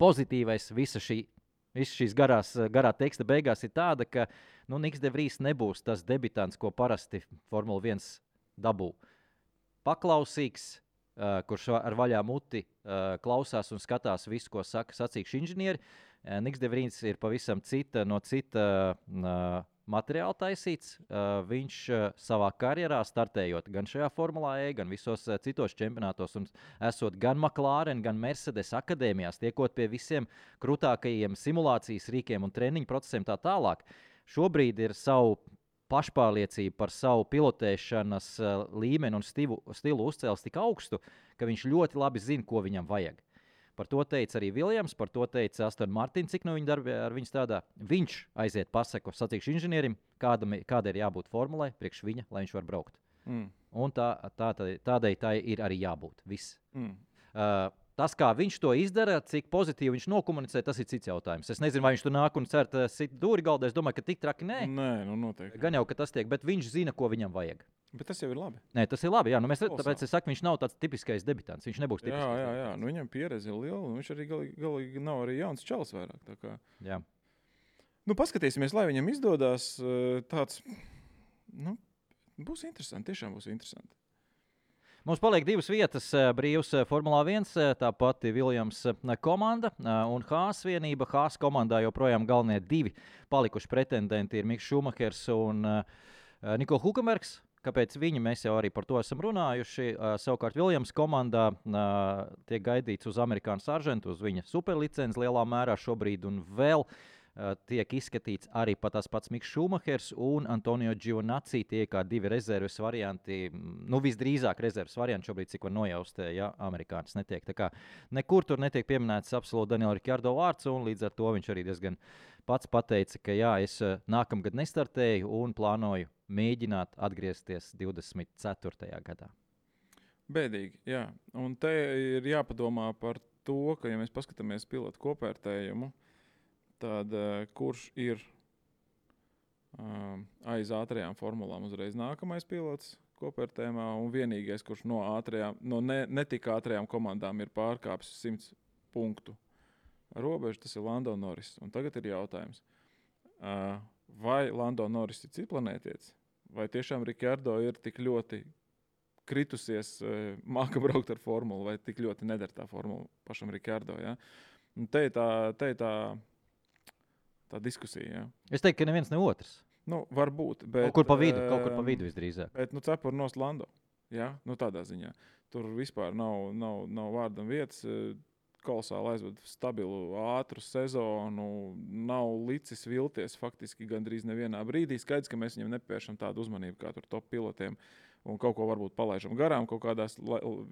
B: pozitīvais visa šīs garā teksta beigās ir tāda, ka Niks De Vries nebūs tas debitants, ko parasti Formula 1 dabū. Paklausīgs, kurš ar vaļā muti klausās un skatās visu, ko saka sacīkšu inženieri. Niks De Vries ir pavisam no cita materiāli taisīts. Viņš savā karjerā startējot gan šajā Formulā E, gan visos citos čempionātos un esot gan McLaren, gan Mercedes akadēmijās, tiekot pie visiem krūtākajiem simulācijas rīkiem un treniņu procesiem tā tālāk. Šobrīd ir savu pašpārliecību par savu pilotēšanas līmeni un stilu uzcēlis tik augstu, ka viņš ļoti labi zina, ko viņam vajag. Par to teica arī Williams, par to teica Aston Martin, cik no viņa darbi ar viņu strādā. Viņš aiziet pasaku sacīkšu inženierim, kāda ir jābūt formulai priekš viņa, lai viņš var braukt. Un tādai tai ir arī jābūt. Viss. Tas, kā viņš to izdara, cik pozitīvi viņš nokomunicē, tas ir cits jautājums. Es nezinu, vai viņš tur nāk un cer sit dūri galdā. Es domāju, ka tik traki nē.
C: Nē, noteikti.
B: Gan jau, ka tas tiek, bet viņš zina, ko viņam vajag.
C: Bet tas jau ir labi.
B: Nē, tas ir labi. Jā, tāpēc es saku, viņš nav tāds tipiskais debitants. Viņš nebūs tipiskais.
C: Jā. Viņam pieredze ir liela, un viņš arī galīgi nav arī jauns čalis vairāk. Tā kā.
B: Jā.
C: Paskatīsimies, lai viņam izdodas tāds, būs interesanti, tiešām būs interesanti.
B: Mums paliek 2 vietas brīvs Formulā 1, tā pati Williams komanda un Haas vienība. Haas komandā joprojām galvenie 2 palikuši pretendenti ir Miks Šumahers un Niko Hulkenbergs. Kāpēc viņi? Mēs jau arī par to esam runājuši. Savukārt Williams komandā tiek gaidīts uz amerikāņu saržantu, uz viņa superlicenci lielā mērā šobrīd un vēl tiek izskatīts arī tas pats Miks Šumahers un Antonio Giovinazzi. Tie kā 2 rezerves varianti, visdrīzāk rezerves varianti šobrīd, cik var nojaust, ja amerikānis netiek. Tā kā nekur tur netiek pieminēts absolūti Daniela Ricciardo vārds, un līdz ar to viņš arī diezgan pats pateica, ka jā, es nākamgad nestartēju un plānoju mēģināt atgriezties 24. gadā.
C: Bēdīgi, jā. Un te ir jāpadomā par to, ka, ja mēs paskatāmies pilotu kopvērtējumu, tad kurš ir aiz ātrajām formulām uzreiz nākamais pilots kopvērtējumā un vienīgais, kurš no netik ātrajām komandām ir pārkāpis 100 punktu robežu, tas ir Lando Norris. Un tagad ir jautājums, vai Lando Norris ir citplanētietis, vai tiešām Ricciardo ir tik ļoti kritusies, māka braukt ar formulu, vai tik ļoti nedara tā formula pašam Ricciardo. Ja? Un te ir tā tā diskusija. Ja.
B: Es teiktu, ka neviens ne otrs.
C: Nu, varbūt, bet...
B: Kaut kur pa vidu visdrīzāk.
C: Bet, cepuri nost Lando. Ja? Nu, tādā ziņā. Tur vispār nav vārdam vietas. Kolosāli aizved stabilu, ātru sezonu, nav licis vilties faktiski gandrīz nevienā brīdī. Skaidrs, ka mēs viņam nepievēršam tādu uzmanību kā tur top pilotiem un kaut ko varbūt palaižam garām kaut kādās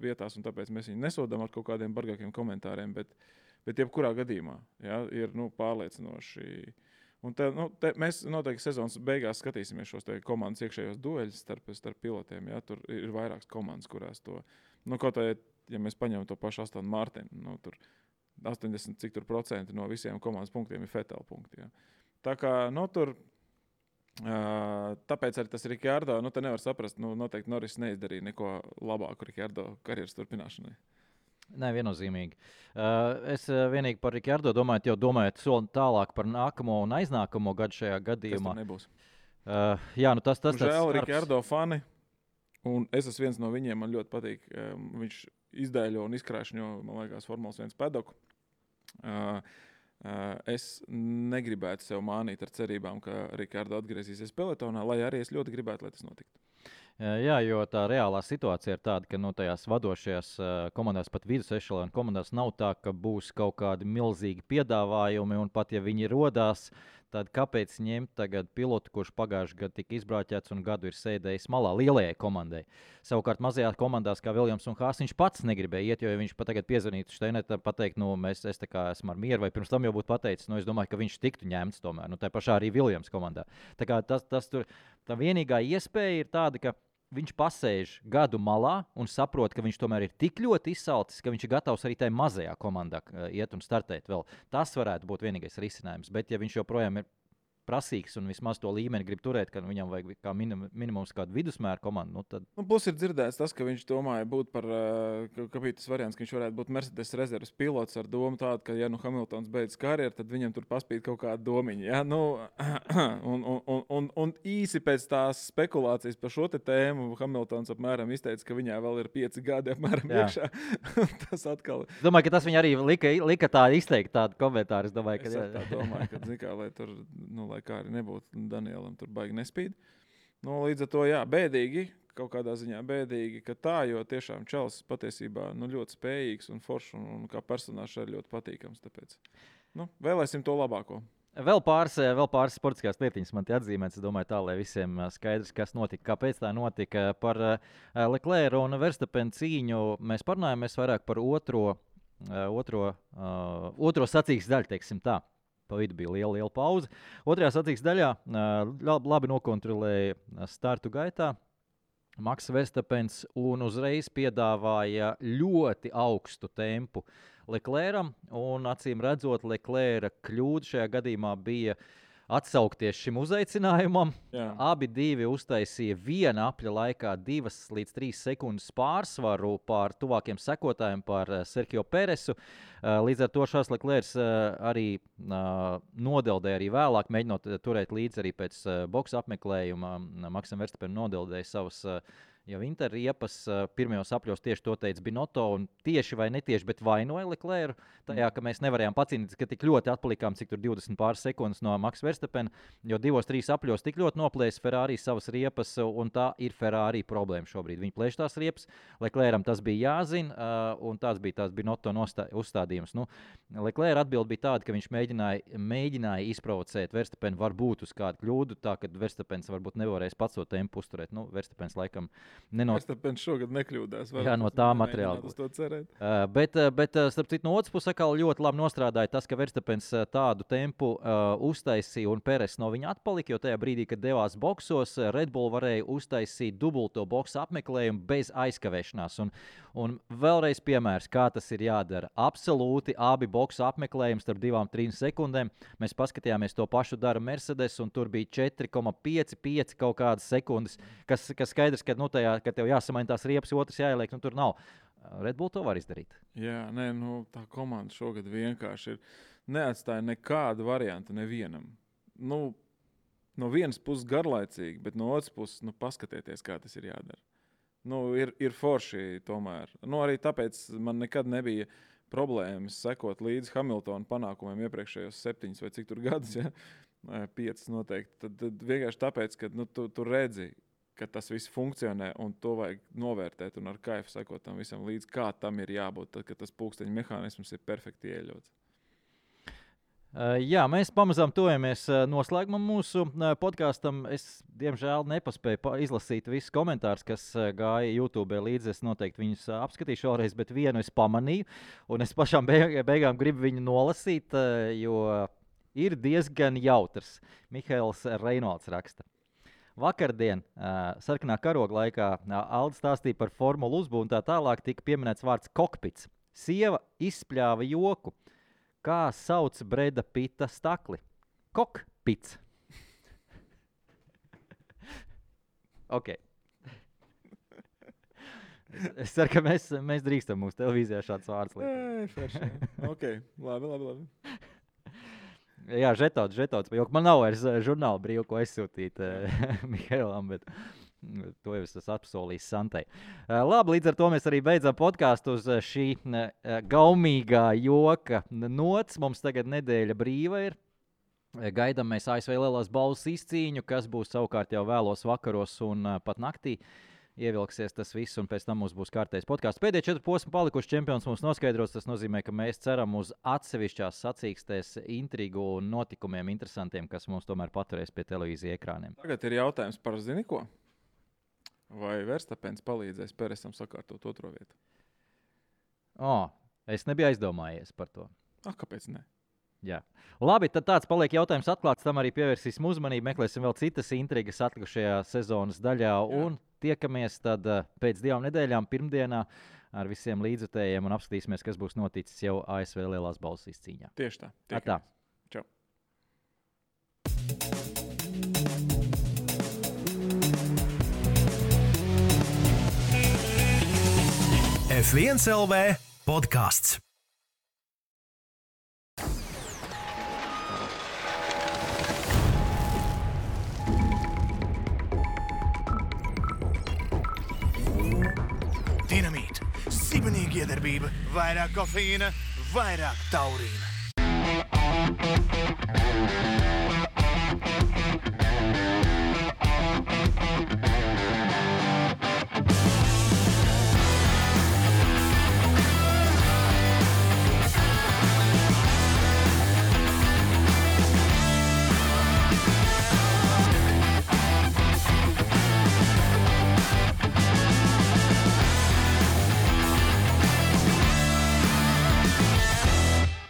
C: vietās, un tāpēc mēs viņu nesodam ar kaut kādiem bargākiem komentāriem, bet jebkurā gadījumā ir pārliecinoši. Un mēs noteikti sezonas beigās skatīsimies šos komandas iekšējos dueļus starp pilotiem. Ja? Tur ir vairākas komandas, kurās to, kaut tā, ja mēs paņemam to pašu Aston Martinu, tur 80% no visiem komandas punktiem ir Vettel punkti. Ja? Tā kā, tur, tāpēc arī tas Ricardo, te nevar saprast, noteikti Norris neizdarīja neko labāku Ricardo karjeras turpināšanai.
B: Nē, viennozīmīgi. Es vienīgi par Ricardo domājot soli tālāk par nākamo un aiznākamo gadu šajā gadījumā.
C: Tas nebūs.
B: Jā, tas
C: žēl Ricardo fani, un es esmu viens no viņiem, man ļoti patīk. Viņš izdēļo un izkrāšņo, man liekas, Formulas 1 pedoku. Es negribētu sev mānīt ar cerībām, ka Ricardo atgriezīsies pelotonā, lai arī es ļoti gribētu, lai tas notiktu.
B: Jā, jo tā reālā situācija ir tāda, ka tajās vadošajās komandās, pat vidus ešelona komandās, nav tā, ka būs kaut kādi milzīgi piedāvājumi, un pat ja viņi rodās, tad kāpēc ņemt tagad pilotu, kurš pagājušajā gadā tika izbrauķēts un gadu ir sēdējis malā lielajai komandai. Savukārt mazajās komandās, kā Viljams un Haas, viņš pats negribēja iet, jo ja viņš pat tagad piezvanītu Steinetam, pateikt, es tā kā esmu ar mieru, vai pirms tam jau būtu pateicis, es domāju, ka viņš tiktu ņemts tomēr, tā pašā arī Viljams komandā. Tā kā tā vienīgā iespēja ir tāda, ka viņš pasēž gadu malā un saprot, ka viņš tomēr ir tik ļoti izsalcis, ka viņš ir gatavs arī tajā mazajā komandā iet un startēt vēl. Tas varētu būt vienīgais risinājums. Bet, ja viņš joprojām ir prasīgs un vismaz to līmeni grib turēt, ka viņam vajag kā minimums kādu vidusmēra komandu, tad...
C: Plus ir dzirdēts tas, ka viņš domāja būt par, ka bija tas variants, ka viņš varētu būt Mercedes rezerves pilots ar domu tādu, ka, ja Hamiltons beidz karjeru, tad viņam tur paspīd kaut kāda domiņa. Ja? Un īsi pēc tās spekulācijas par šo tēmu Hamiltons apmēram izteica, ka viņā vēl ir 5 gadi apmēram iekšā. Tas atkal...
B: Es domāju, ka tas viņa arī lika tā izteikt tādu komentāru. Es domāju,
C: ka tā domāju, ka zikā, lai tur, lai kā arī nebūtu Danielam tur baigi nespīd. Līdz ar to, bēdīgi, kaut kādā ziņā bēdīgi, ka tā, jo tiešām Čels patiesībā ļoti spējīgs un foršs un kā personāžs arī ļoti patīkams. Tāpēc vēlēsim to labāko.
B: Vēl pāris sportiskās lietiņas man te atzīmēts. Es domāju tā, lai visiem skaidrs, kas notika, kāpēc tā notika. Par Leclerc un Verstappen cīņu mēs parunājamies vairāk par otro sacīkstes daļu, teiksim tā. Pa vidu bija liela pauze. Otrajā sacīkstes daļā labi nokontrolēja startu gaitā Maks Verstappens un uzreiz piedāvāja ļoti augstu tempu Leclercam. Un acīm redzot, Leclerca kļūda šajā gadījumā bija atsaukties šim uzaicinājumam.
C: Jā.
B: Abi uztaisīja viena apļa laikā 2 līdz 3 sekundes pārsvaru pār tuvākiem sekotājiem, pār Sergio Peresu. Līdz ar to Charles Leclerc arī nodeldēja arī vēlāk, mēģinot turēt līdzi arī pēc boksa apmeklējuma. Maksam Verstappenam nodeldēja savas jau interriepas. Pirmajos apļos tieši to teica Binotto, un tieši vai netieši, bet vainoja Leclercu tajā, ka mēs nevarējām pacīnīties, ka tik ļoti atpalikām, cik tur 20 pāris sekundes no Max Verstappena, jo 2-3 apļos tik ļoti noplēs Ferrari savas riepas, un tā ir Ferrari problēma šobrīd. Viņi plēš tās riepas, Leclercam tas bija jāzina, un tāds bija tās Binotto uzstādījums. Leclerc atbild bija tāda, ka viņš mēģināja izprovocēt Verstappenu varbūt uz kādu kļūdu, tā, ka Verstappens varbūt nevarēs pats to tempu uzturēt. Verstappens laikam
C: Verstappens šogad nekļūdās.
B: Jā, no tā materiāla. Bet starp citu, no otras puses ļoti labi nostrādāja tas, ka Verstappens tādu tempu uztaisīja un Peres no viņa atpalika, jo tajā brīdī, kad devās boksos, Red Bull varēja uztaisīt dubulto boksa apmeklējumu bez aizkavēšanās. Un vēlreiz piemērs, kā tas ir jādara. Absolūti abi boksa apmeklējumi starp 2-3 sekundēm. Mēs paskatījāmies to pašu dara Mercedes, un tur bija 4,55 kaut kādas sekundes, kas skaidrs, ka kad tev jāsamaina tās riepas, otrs jāieliek, tur nav. Red Bull to var izdarīt.
C: Jā, tā komanda šogad vienkārši neatstāja nekādu variantu nevienam. No vienas puses garlaicīgi, bet no otras puses, paskatieties, kā tas ir jādara. Ir forši tomēr. Arī tāpēc man nekad nebija problēmas sekot līdz Hamiltona panākumiem iepriekšējos 7 vai cik tur gadus, ja? 5 noteikti. Tad vienkārši tāpēc, ka tu redzi, ka tas viss funkcionē un to vajag novērtēt un ar kaifu sekot tam visam līdz, kā tam ir jābūt, tad, kad tas pulksteņa mehānisms ir perfekti ieļauts.
B: Jā, mēs pamazām tojamies noslēgumam mūsu podkastam. Es, diemžēl, nepaspēju izlasīt visus komentārus, kas gāja YouTube līdzi. Es noteikti viņus apskatīšu vēlreiz, bet vienu es pamanīju. Un es pašām beigām gribu viņu nolasīt, jo ir diezgan jautrs. Mihails Reinolds raksta. Vakardien, sarkanā karoga laikā, Alde stāstīja par formulu uzbūvu un tā tālāk tika pieminēts vārds kokpits. Sieva izspļāva joku. Kā sauc Breda Pita stakli? Kokpits. Ok. Es ceru, ka mēs drīkstam mūsu televīzijā šāds vārds likt.
C: Ok, labi.
B: Jā, žetots, jo man nav vairs žurnāla brīvu, ko aizsūtīt Mihailam, bet to jau es apsolīju Santai. Labi, līdz ar to mēs arī beidzam podkāstu uz šī gaumīgā joka nots. Mums tagad nedēļa brīva ir. Gaidām mēs ASV lielās balvas izcīņu, kas būs savukārt jau vēlos vakaros un pat naktī. Ievilksies tas viss, un pēc tam mums būs kārtējs podkāsts. Pēdējie 4 posmi palikuši čempions mums noskaidros. Tas nozīmē, ka mēs ceram uz atsevišķās sacīkstēs intrigu un notikumiem interesantiem, kas mums tomēr paturēs pie televīzija ekrāniem.
C: Tagad ir jautājums par zini ko? Vai Verstapens palīdzēs Peresam sakārtot 2. vietu?
B: Es nebiju aizdomājies par to.
C: Kāpēc ne?
B: Jā. Labi, tad tāds paliek jautājums atklāts. Tam arī pievērsīsim uzmanību. Meklēsim vēl citas intrigas atlikušajā sezonas daļā. Jā. Un tiekamies tad pēc 2 nedēļām pirmdienā ar visiem līdzjutējiem un apskatīsimies, kas būs noticis jau ASV lielās balvas izcīņā.
C: Tieši tā.
B: Atā.
C: Čau.
A: F1 LV podcasts. Dinamīta, sibenīga iedarbība, vairāk kofeīna, vairāk taurīna.